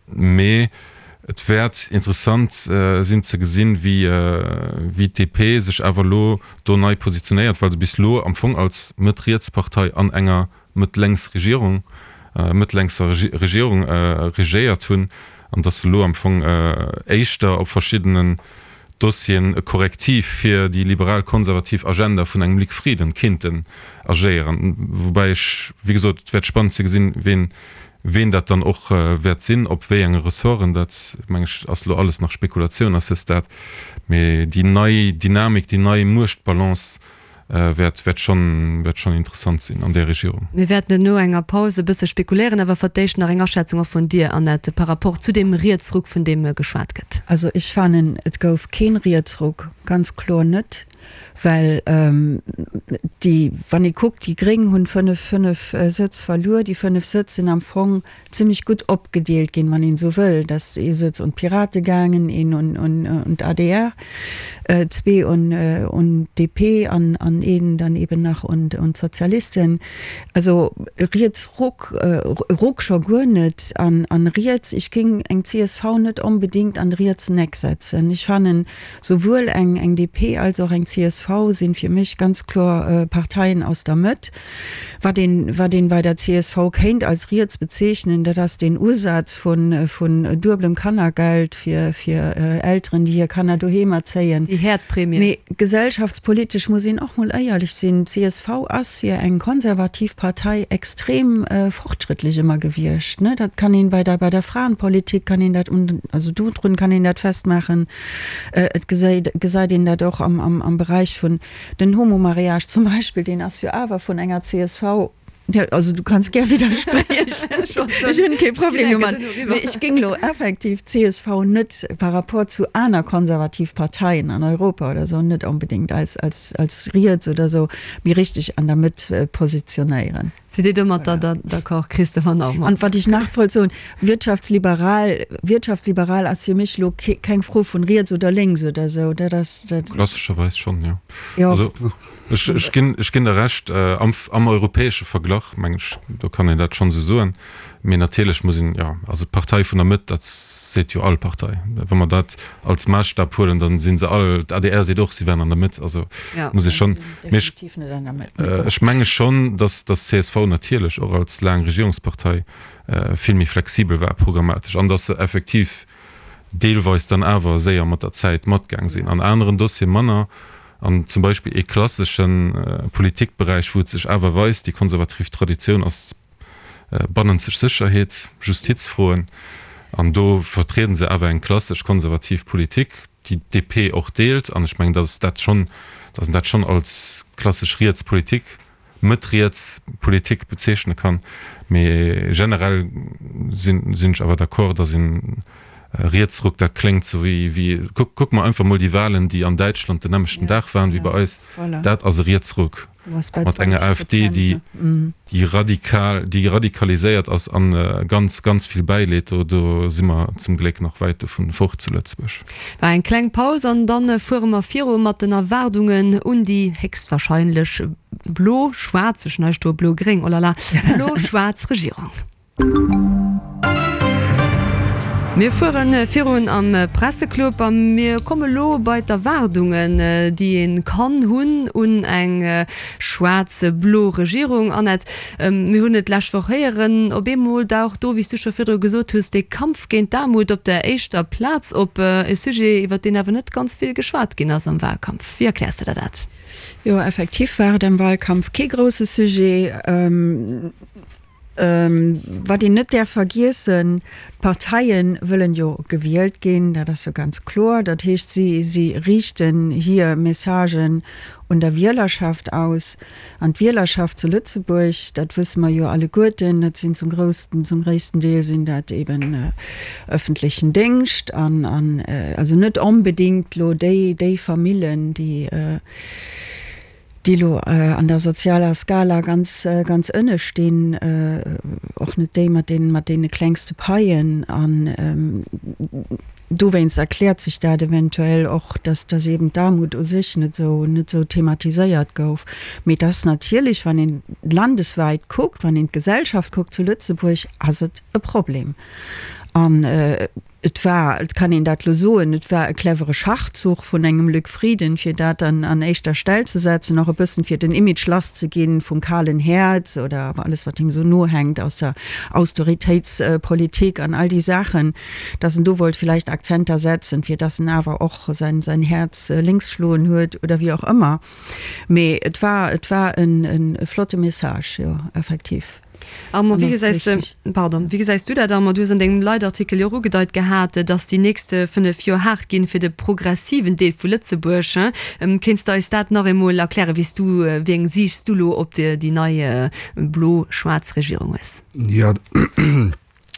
Mee Et wäert interessant sinn ze gesinn, wéi d'DP sech awer elo do nei positionéiert, well se bis elo am Fong als Mëtt-Riets-Partei an enger Mëtt-Lénks-Regierung, mëtt-lénkser Regierung regéiert hunn, an datt se elo am Fong éischter op verschiddenen Dossieren e Korrektiv fir déi liberal-konservativ Agenda vun engem Luc Frieden kinnten agéieren. Woubäi ech, wéi gesot, et wäert spannend ze gesinn, ween Ween dat dann och wäert sinn, op wéi enge Ressorten, dat meng ech ass elo alles nach Spekulatioun à ce stade. Mee déi nei Dynamik, déi nei Muechtbalance wäert, wäert schonn, wäert schonn interessant sinn an där Regierung. Mir wäerten no enger Paus e bësse spekuléieren, awer fir d'éischt nach eng Aschätzung och vun dir, Annette, par rapport zu deem Rietsruck, vun deem geschwat gëtt. Also ech fannen, et gouf keen Rietsruck, ganz kloer net. Well déi, wann ee kuckt, déi Gréng hunn 5, 5 Sëtz verluer. Déi 5 Sëtz sinn am Fong zimlech gutt opgedeelt ginn, wann een esou wëll. Et ass ee Sëtz un d'Pirate gaangen, een un d'ADR, zwee un d'DP an een dann eben nach un d'Sozialisten. Also Rietsruck, Ruck scho guer net an riets, ech géing eng csv net onbedéngt an de rietsen Eck setzen. Ech fannen, Souwuel eng eng DP als och eng csv sinn fir mech ganz kloer Parteien aus der Mëtt. Wat een wat een bei der csv kéint als riets bezeechnen, dat ass deen Usaz vun vun dueblem Kannergeld fir fir Elteren, déi hir Kanner doheem erzéien. Déi Häerdprämie. Mee gesellschaftspolitesch muss een och mol éierlech sinn, csv ass fir eng konservativ Partei extrem fortschrëttlech ëmmer gewiescht, ne. Dat kann een bei der bei der Fraenpolitik kann een dat un also dodrun kann een dat festmaachen. Et gesäit gesäit een dat och am am am Beräich vun den Homomariage zum Beispill, deen ass jo awer vun enger csv, jo, also du kanns gär widderspriechen, ech hunn kee Problem domat, mee ech géing elo effektiv d'CSV net par rapport zu aner konservativ Parteien an Europa oder esou net onbedéngt als als als riets oder esou, mee richteg an der Mëtt positionéieren. Sidd Dir domatter d'accord, Christopher Naumann? An wat ech nach wollt soen, wirtschaftsliberal, wirtschaftsliberal ass fir mech elo keng Fro vun riets oder lénks oder esou, dat ass dat. Klassescherweis schonn, jo. Jo. Also ech, ech ginn, ech ginn der Recht, am, am europäesche Verglach, meng ech, do kann een dat schonn esou soen. Mee natierlech muss een, jo, also d'Partei vun der Mëtt, dat seet jo all Partei. Wa mer dat als Maasstap huelen, da si se all, d'ADR seet och, si wären an der Mëtt. Also muss ee schonn, mee ech, ech menge schonn, datt, datt csv natierlech och als laang Regierungspartei vill méi flexibel war programmatesch an datt se effektiv deelweis dann awer séier mat der Zäit matgaang sinn, an aneren Dossiere manner. An zum Beispill ee klassesche Politikberäich, wou et sech awer weist, déi konservativ Traditioun ass bannenzeg Sécherheet, Justizfroen, an do vertrieden se awer eng klassesch konservativ Politik, déi d'DP och deelt. An ech mengen, datt dat schonn, datt een dat schonn als klassesch riets Politik. Mëtt-riets Politik bezeechne kann. Mee generell sinn sinn ech awer d'accord, datt een Rietsruck, dat kléngt sou wéi wéi, kuck kuck mer einfach mol déi Wahlen, déi an Däitschland den nämmlechten Dag waren wéi bei eis, dat ass e Rietsruck mat enger AfD, déi déi radikal, déi radikaliséiert ass an ganz, ganz vill bäileet. Do do si mer zum Gléck nach wäit dovun fort zu Lëtzebuerg. War eng kleng Paus an dann fuere mer viru mat den Erwaardungen un déi héchstwahrscheinlech blo-schwaarz, ech hunn hei stoe blo-gréng, oh la la, blo-schwaarz Regierung. Mir fuere virun am Presseclub a mir komme lo bei d'Erwaardungen, déi ee kann hunn un eng schwaarz-blo Regierung. Annette, mir hunn et d'lescht Woch héieren, op eemol daucht do, wéi s du scho virdru gesot hues, dee Kampf géint d'Aarmut op der éischter Plaz op. E Sujet, iwwer deen awer net ganz vill geschwat ginn ass am Wahlkampf. Wéi erkläers de der dat? Jo, effektiv war et am Wahlkampf kee grousse Sujet. Wat een net däerf vergiessen, d'Parteie wëllen jo gewielt ginn, dat ass jo ganz kloer. Dat heescht, si si riichten hir Messagen un der Wielerschaft aus. An d'Wielerschaft zu Lëtzebuerg, dat wësse mer jo alleguerten, dat sinn zum groussten, zum gréissten Deel sinn dat eben öffentlechen Déngscht an an also net onbedéngt elo déi déi Famillen, déi déi elo an der sozialer Skala ganz, ganz ënne stinn, och net déi mat deenen, mat deene klengste Paien. An dowéinst erkläert sech dat eventuell och, dass, dass eben d'Aarmut u sech net esou, net esou thematiséiert gouf. Mee et ass natierlech, wann een landeswäit kuckt, wann een d'Gesellschaft kuckt zu Lëtzebuerg, ass et e Problem. An Et war, et kann een dat elo soen, et war e clevere Schachzuch vun engem Luc Frieden, fir dat an an éischter Stell ze setzen, och e bëssen fir den Image lass ze ginn vum kalen Häerz oder alles wat him esou nohänkt aus der Austeritéitspolitik an all déi Saachen, dass en do wollt vielleicht Akzenter setzen, fir dass en awer och säin säin Häerz lénks schloen huet oder wéi och ëmmer. Mee et war, et war e flotte Message, jo, effektiv. Armand, wéi gesäis de, pardon, wéi gesäis du dat, Armand? Du hues an dengem Leitartikel jo och ugedeit gehat, datt déi nächst 5 Joer haart ginn fir de progressiven Deel vu Lëtzebuerg. Kéints de eis dat nach eemol erklären, wéi s du, wéi eng Siicht s du elo op déi nei blo-schwaarz Regierung hues? Jo,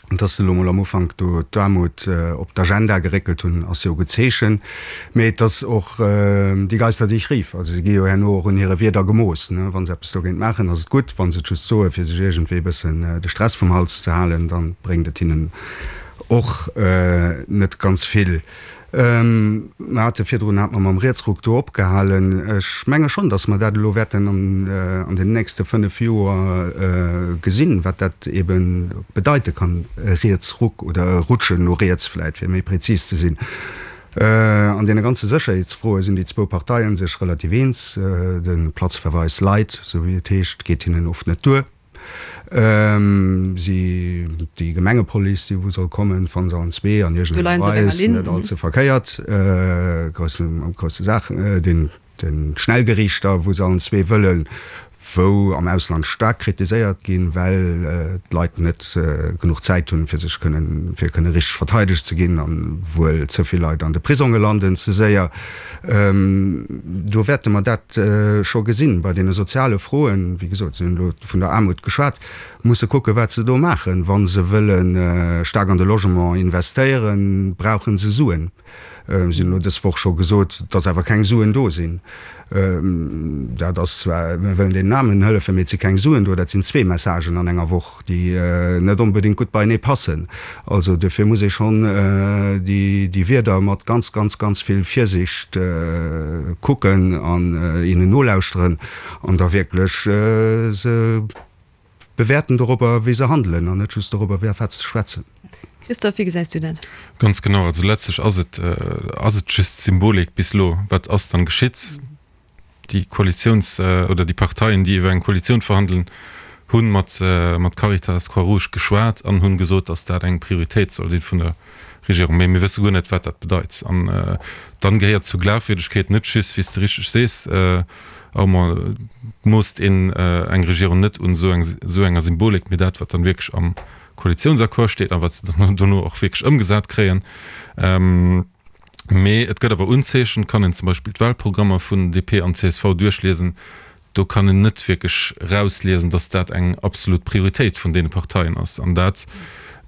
Dass se elo mol am Ufank do d'Aarmut op d'Agenda geréckelt hunn, ass jo e gutt Zeechen. Mee et ass och die Geister, die ich rief. Also se gi jo herno och un hire Wierder gemooss. Wa se eppes dogéint maachen, ass et gutt. Wa se et just soe fir sech iergendwéi e bëssen de Stress vum Hals ze halen, da bréngt et hinnen och net ganz vill. Mer hate virdrun, hat mer mam Rietsruck do opgehalen. Ech menge schonn, datt mer dat elo wäerten an den nächste 5 Joer gesinn, wat dat ebe bedeite kann, e Rietsruck oder e Rutschen no riets vläicht, fir méi prezis ze sinn. An deene ganze Sécherheetsfroe sinn déi zwou Parteie sech relativ eens. De Platzverweis light, esou wéi et heescht, geet hinnen oft net duer. Si, déi Gemengepolice, déi wou soll kommen, fannen se allen zwee an iergendenger Weis net all ze verkéiert. Grousse, grousse Saach. Den, den Schnellgeriichter, wou se allen zwee wëllen, wou am Ausland staark kritiséiert ginn, well d'Leit net genuch Zäit hunn, fir sech kënnen, fir kënne richteg verteidegt ze ginn an wuel ze vill Leit an de Prisonge landen ze séier. Do wäerte mer dat scho gesinn. Bei deene soziale Froen, wéi gesot, si hunn elo vun der Aarmut geschwat, musse kucken, wat se do maachen. Wa se wëlle staark an de Logement investéieren, brauche se Suen. Si hunn elo dës Woch scho gesot, datt awer keng Suen do sinn. Dat ass zwar, mir wëllen deenen Aarmen hëllefen, mee et si keng Suen do. Dat sinn zwee Messagen an enger Woch, déi net onbedéngt gutt beienee passen. Also duerfir muss ee schonn déi Wierder mat ganz, ganz, ganz vill Virsicht kucken an hinnen nolauschteren an da wierklech se bewäerten dorobber, wéi se handelen an net just dorobber, wéi a wat se schwätzen. Christophe, wéi gesäis du dat? Ganz genau. Also letztlech ass et, ass et just Symbolik bis elo. Wat ass dann geschitt? Déi Koalitiouns oder déi Parteien, déi iwwer eng Koalitioun verhandelen, hu mat mat Caritas, Croix-Rouge geschwat an hunn gesot, datt dat eng Prioritéit soll sinn vun der Regierung. Mee mir wësse guer net, wat dat bedeit. An dann gehéiert zur Glafwierdegkeet net just, wéi s de richteg sees, Armand, moosst een eng Regierung net un esou esou enger Symbolik, mee dat, wat dann wierklech am Koalitiounsaccord steet a wat se dann dono och wierklech ëmgesat kréien. Mee et gëtt awer Unzeechen, et kann een zum Beispill d'Wahlprogrammer vun DP an csv duerchliesen. Do kann een net wierklech erausliesen, datt dat eng absolut Prioritéit vun deene Parteien ass. An dat,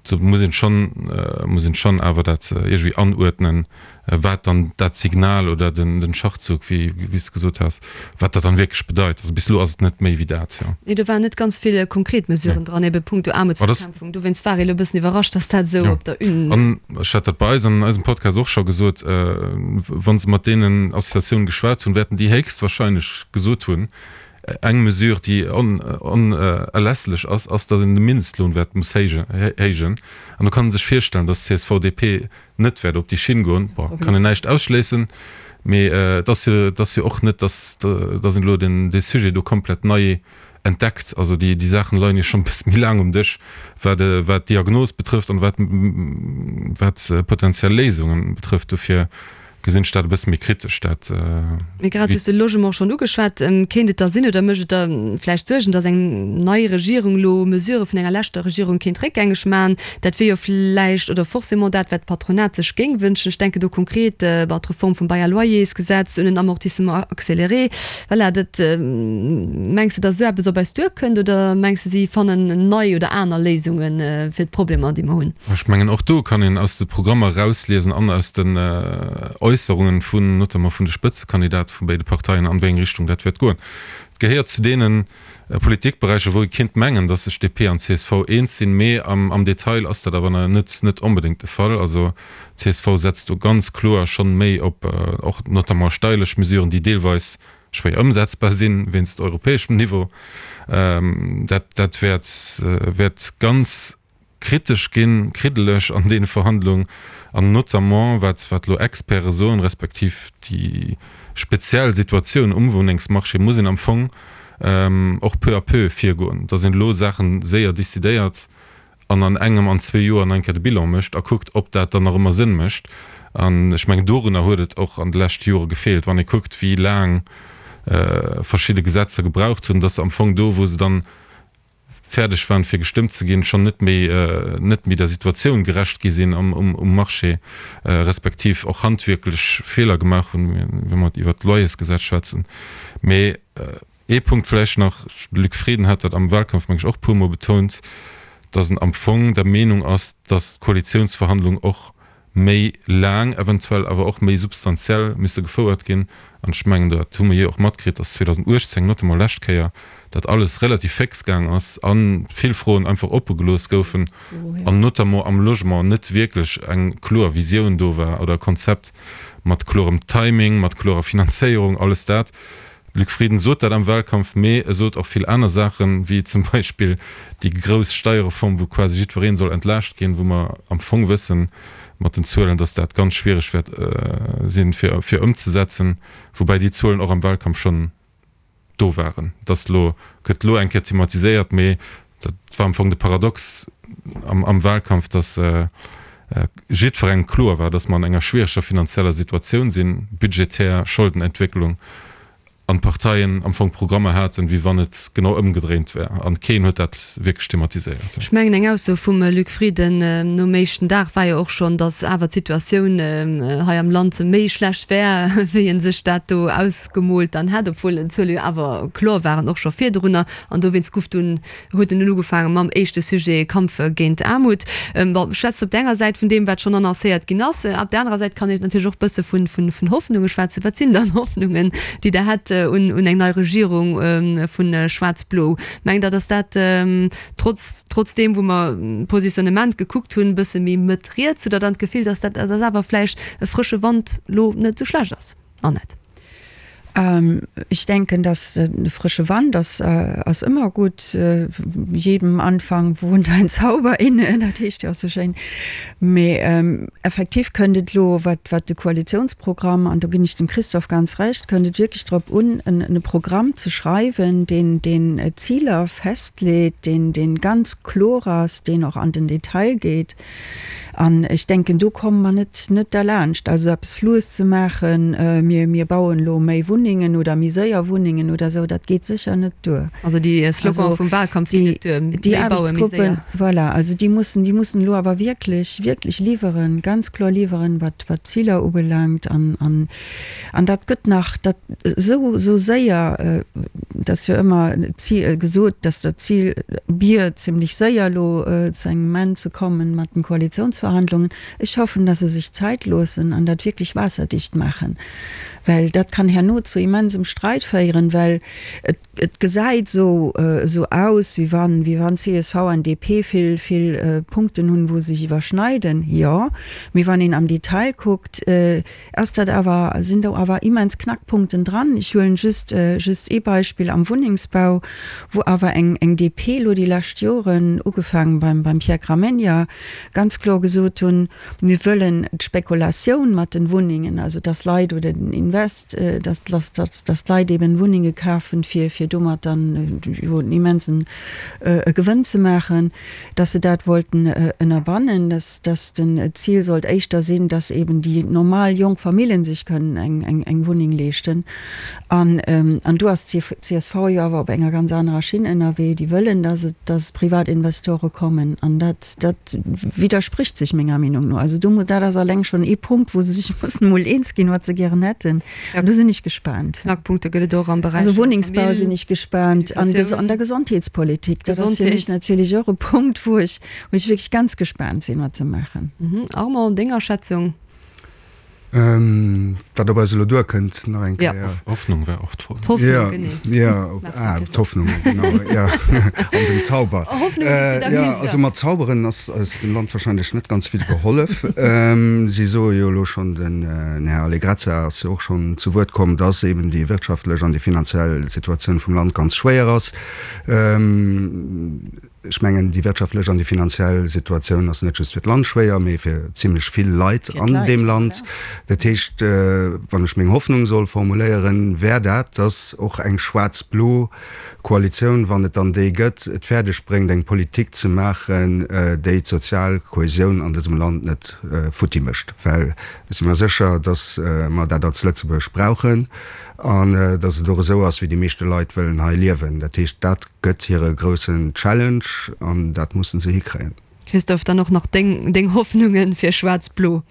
do muss een schonn, muss een schonn awer dat iergendwéi anuerdnen, wat dann dat Signal oder den Schachzug, wéi wéi s de gesot has, wat dat dann wierklech bedeit. Also bis elo ass et net méi wéi dat, jo. Nee, do waren net ganz vill konkret Mesuren dran, ebe punkto Aarmutsbekämpfung. Dowéinst war ee elo e bëssen iwwerrascht, datt dat esou op der Une. An ech hat dat bei eis an eisem Podcast och scho gesot, wa se mat deenen Associatiounen geschwat hunn, wäerten déi héchstwahrscheinlech gesot hunn, eng Mesure, déi onerlässlech ass, ass, datt een de Mindestlohn wäert muss héijen. An do kann ee sech virstellen, datt csv, DP net wäert op déi Schinn goen. Bon, kann een näischt ausschléissen, mee et ass jo, et ass jo och net, datt, datt een elo den, dee Sujet do komplett nei entdeckt. Also déi, déi Saachen leien jo schonn e bësse méi laang um Dësch, wat, wat d'Diagnos betrëfft an wat, wat potenziell Léisungen betrëfft. Dofir gesinn ech dat e bësse méi kritesch, dat. Mee grad hues de Logement schonn ugeschwat. Kéint et da sinn oder mécht et der vläicht Suergen, datt eng nei Regierung elo Mesurë vun enger leschter Regierung kéint réckgängeg maachen? Dat wier jo vläicht oder forcément dat, wat d'Patronat sech géing wënschen. Ech denken do konkret bon, d'Reform vum Bail à loyers-Gesetz, un en Amortissement accéléré. Voilà, dat, mengs de, datt esou eppes op eis duerkënnt oder mengs de, si fannen nei oder aner Léisunge fir d'Problemer, déi mer hunn? Ech mengen, och do kann een aus de Programmer erausliesen an aus den Äusserungen vun, notamment vun de Spëtzekandidate vu béide Parteien, an wéi eng Richtung dat wäert goen. Et gehéiert zu deene Politikberäicher, wou ee kinnt mengen, datt sech DP an csv eens sinn, mee am Detail ass dat awer net net onbedéngt de Fall. Also csv setzt do ganz kloer schonn méi op och notamment steierlech Mesuren, déi deelweis schwéier ëmsetzbar sinn wéinst europäeschem Niveau. Dat dat wäert wäert ganz kritesch ginn, kriddeleg an deene Verhandlungen an notamment wat wat elo Experte soen, respektiv déi speziell Situatioun um Wunnengsmarché, muss een am Fong och peu à peu virgoen, datt een elo Saache séier décidéiert an an engem, an zwee Joer nach eng Kéier de Bilan mécht a kuckt, ob dat dann nach ëmmer Sënn mécht. An ech mengen, dorunner huet et och an de leschte Jore gefeelt, wann ee kuckt, wéi laang verschidde Gesetzer gebraucht hunn, datt se am Fong do, wou se dann fäerdeg waren fir gestëmmt ze ginn, schonn net méi net méi der Situatioun gerecht gi sinn am um Marché, respektiv och handwierklech Feeler gemaach hunn, wa mer iwwert d'Loyersgesetz schwätzen. Mee ee Punkt vläicht nach, de Luc Frieden hat dat am Wahlkampf, meng ech, och e puermol betount, datt en am Fong der Meenung ass, datt d'Koalitiounsverhandlung och méi laang, eventuell awer och méi substantiell misse gefouert ginn. An ech mengen, dat hu mer jo och matkritt, dass 2018, notamment lescht Kéier, dat alles relativ féx gaang ass a vill Froen einfach oppe gelooss goufen an notamment am Logement net wierklech eng kloer Visioun do war oder e Konzept mat klorem Timing, mat klorer Finanzéierung, alles dat. Luc Frieden sot dat am Wahlkampf, mee e sot och vill aner Saachen, wéi zum Beispill déi grouss Steierreform, wou quasi jiddweree soll entlaascht ginn, wou mer am Fong wëssen mat den Zuelen, datt dat ganz schwiereg wäert sinn, fir ëmzesetzen, woubäi déi Zuelen och am Wahlkampf schonn do waren. Et ass elo, gëtt elo eng Kéier thematiséiert, mee dat war am Fong de Paradox am Wahlkampf, datt jiddwerengem kloer war, datt mer an enger schwiereger finanzieller Situatioun sinn, budgetär, Scholdenentwécklung, an d'Parteien am Fong Programmer haten, wéi wann et genau ëmgedréint wär. An keen huet dat wierklech thematiséiert. Ech mengen, eng Ausso vum Luc Frieden nom éischten Dag war jo och schonn, datt awer d'Situatioun hei am Land méi schlecht wär, wéi e sech dat do ausgemoolt dann hätt, obwuel d'Zuele jo awer kloer waren, och scho virdrunner. An dowéinst guff dunn huet en dunn ugefaange mam éischte Sujet, Kampf géint Aarmut. Bon, schwätzt op der enger Säit vun deem, wat schonn annoncéiert ginn ass. Op der anerer Säit kann een natierlech och bësse vun, vun, vun Hoffnunge schwätzen. Wat sinn dann Hoffnungen, déi Der hätt un, un eng nei Regierung vu Schwaarz-Blo? Mengt Der, datt dat trotz, trotz deem, wou mer d'Positionnement gekuckt hunn, bësse méi Mëtt-riets, hutt Der dann d'Gefill, datt dat, datt awer vläicht e frësche Wand lo net esou schlecht ass? Annette. Ich denke, dass e frësche Wand ass, ass ëmmer gutt. Jedem Anfang wohnt ein Zauber inne, dat heescht jo och sou schéin. Mee effektiv kënnt et elo, wat, wat de Koalitionsprogramm, an do ginn ech dem Christophe ganz Recht, kënnt et wierklech drop un, en e Programm ze schreiwen, deen, deen Ziler festleet, deen, deen ganz kloer ass, deen och an den Detail geet. An ech denken, do komme mer net, net derlaanscht. Also eppes Floues ze maachen, mir, mir bauen elo méi Wunnengen. Wunnengen oder méi séier Wunnengen oder esou, dat geet sécher net duer. Also déi Slogan vum Wahlkampf ginn net duer, méi baue, méi séier. Voilà, also déi mussen, déi mussen elo awer wierklech, wierklech liwweren, ganz kloer liwweren, wat, wat d'Ziler ubelaangt. An, an, an dat gëtt nach, dat esou, esou séier, et ass jo ëmmer d'Zil gesot, dass dat Zil wier, zimlech séier elo zu engem Enn ze kommen mat den Koalitionsverhandlungen. Ech hoffen, dass se sech Zäit loossen an dat wierklech waasserdicht maachen, well dat kann herno zu immensem Streit féieren, well et, Et gesäit esou esou aus, wéi wann, wéi wann csv an DP vill, vill Punkten hunn, wou se sech iwwerschneiden. Jo, mee wann een am Detail kuckt, ass dat awer, sinn do awer immens Knackpunkten dran. Ech huelen just, just ee Beispill am Wunnengsbau, wou awer eng, eng DP elo déi lescht Joren, ugefaangen beim, beim Pierre Gramegna, ganz kloer gesot hunn, Mir wëllen d'Spekulatioun mat den Wunnengen, also dass Leit oder den Invest, dass, dass, dass d'Leit eben Wunnenge kafen, fir, fir domat dann jo en immensen Gewënn ze maachen, dass se dat wollten ënnerbannen, dass, dass den Zil sollt éischter sinn, dass eben déi normal jonk Familljen sech kënnen eng, eng, eng Wunneng leeschten. An, an do ass d'CSV jo awer op enger ganz anerer Schinn ënnerwee. Déi wëllen, dass et, dass Privatinvestore kommen. An dat, dat widderspricht sech menger Meenung no. Also do, dat ass alleng schonn ee Punkt, wou se sech mussen emol eens ginn, wat se gären hätten. An do sinn ech gespaant. Knackpunkte gëtt et och am Beräich Also Wunnengsbau sinn ech gespaant. An an der Gesondheetspolitik. Dat ass fir mech natierlech och e Punkt, wou ech, wou ech wierklech ganz gespaant sinn, wat se maachen. Armand, deng Aschätzung? Wat op eis elo duerkënnt, nach eng Kéier. Hoffnung war och d'Fro. D'Hoffnung, genee. Jo, ah, d'Hoffnung, genau, jo. An den Zauber. Hoffnung hues du da Jo, also mat Zauberen ass eis dem Land wahrscheinlech net ganz vill gehollef. Si soe jo elo schonn, den Här Allegrezza ass jo och schonn zu Wuert komm, dass eben déi wirtschaftlech an déi finanziell Situatioun vum Land ganz schwéier ass. Ech mengen, déi wirtschaftlech an déi finanziell Situatioun ass net just fir d'Land schwéier, mee fir zimlech vill Leit an deem Land. Dat heescht, wann ech meng Hoffnung soll formuléieren, wär dat, dass och eng schwaarz-blo Koalitioun, wann et dann déi gëtt, et fäerdeg bréngt, eng Politik ze maachen, déi d'sozial Kohäsioun an dësem Land net futti mécht. Well ech si mer sécher, dass mer dat als Lëtzebuerg brauchen an dass et och esou ass, wéi déi meeschte Leit wëllen hei liewen. Dat heescht, dat Gëtt hire groussen Challenge an dat mussen se hikréien. Christophe, dann och nach deng deng Hoffnungen fir Schwaarz-Blo?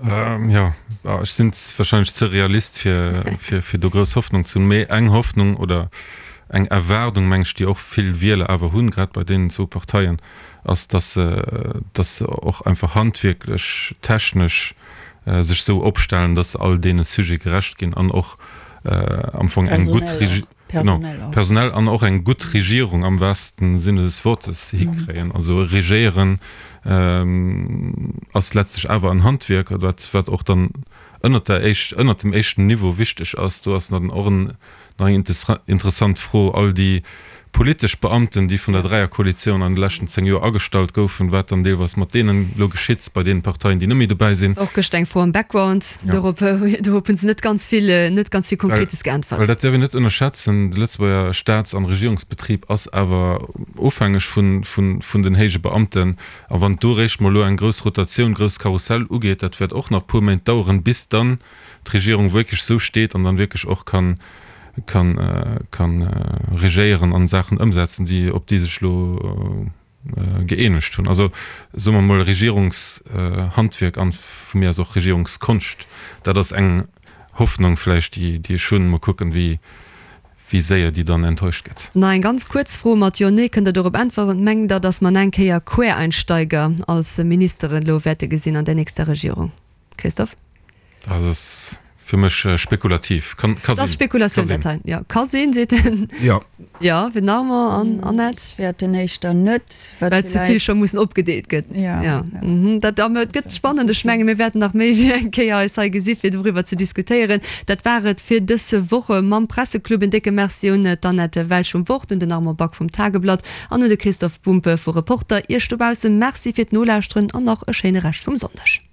Jo, ech sinn wahrscheinlech ze Realist fir fir fir do grouss Hoffnung ze hunn. Mee eng Hoffnung oder eng Erwaardung, meng ech, déi och vill Wieler awer hunn, grad bei deenen zwou Parteien, ass, dass se dass se och einfach handwierklech, technesch sech sou opstellen, dass se all deene Sujete gerecht ginn an och am Fong eng gutt Genau, personell an och eng gutt Regierung am wahrsten Sinne des Wortes hikréien. Also regéieren ass letztlech awer en Handwierk, wat wat och dann ënnert der éischt, ënnert dem éischten Niveau wichteg ass. Do ass dann och en nach eng interessant Fro, all déi politesch Beamten, déi vun der Dräierkoalitioun an de leschten 10 Joer agestallt goufen, wat dann deelweis mat deenen elo geschitt, bei deenen Parteien, déi net méi dobäi sinn. Och gëscht eng Fro am Background, dorop dorop hunn se net ganz vill, net ganz vill Konkretes geäntwert. Well dat däerf een net ënnerschätzen, de Lëtzebuerger Staats an Regierungsbetrib ass awer ofhängeg vun, vun, vun den héije Beamten. A wann do réischt mol elo eng grouss Rotatioun, grousst Karussell ugeet, dat wäert och nach puer Méint daueren, bis dann d'Regierung wierklech esou steet an dann wierklech och kann, kann, kann regéieren an Saachen ëmsetzen, déi, op déi sech elo gëeenegt hunn. Also soe mer emol Regierungshandwierk an vu mir aus och Regierungskonscht. Dat ass eng Hoffnung vläicht, déi, déi ech hunn. Mol kucken, wéi, wéi séier déi dann enttäuscht gëtt. Nach eng ganz kuerz Fro mat Jo, Nee. Kënnt Der dorop äntweren? Mengt Der, datt mer nach eng Kéier Quereinsteiger als Ministeren elo wäerte gesinn an der nächster Regierung? Christophe? Dat ass fir mech spekulativ. Kann, ka sinn. Dat ass Spekulatioun, dat hei. Jo, ka sinn, seet en. Jo. Jo, fir den Armand an Annette? Ech wäerten éischter net, wat Well ze vill scho mussen opgedeelt gëtt. Jo. Jo. Dat, a et gëtt spannend. Ech menge mir wäerten nach méi wéi eng Kéier eis hei gesi fir doriwwer ze diskutéieren. Dat war et fir dës Woche mam Presseclub. En décke Merci un d'Annette Welsch vum Wort, un den Armand Back vum Tageblatt an un de Christophe Bumpe vu Reporter. Iech dobausse Merci fir d'Nolauschteren an nach e schéine Rescht vum Sonndeg.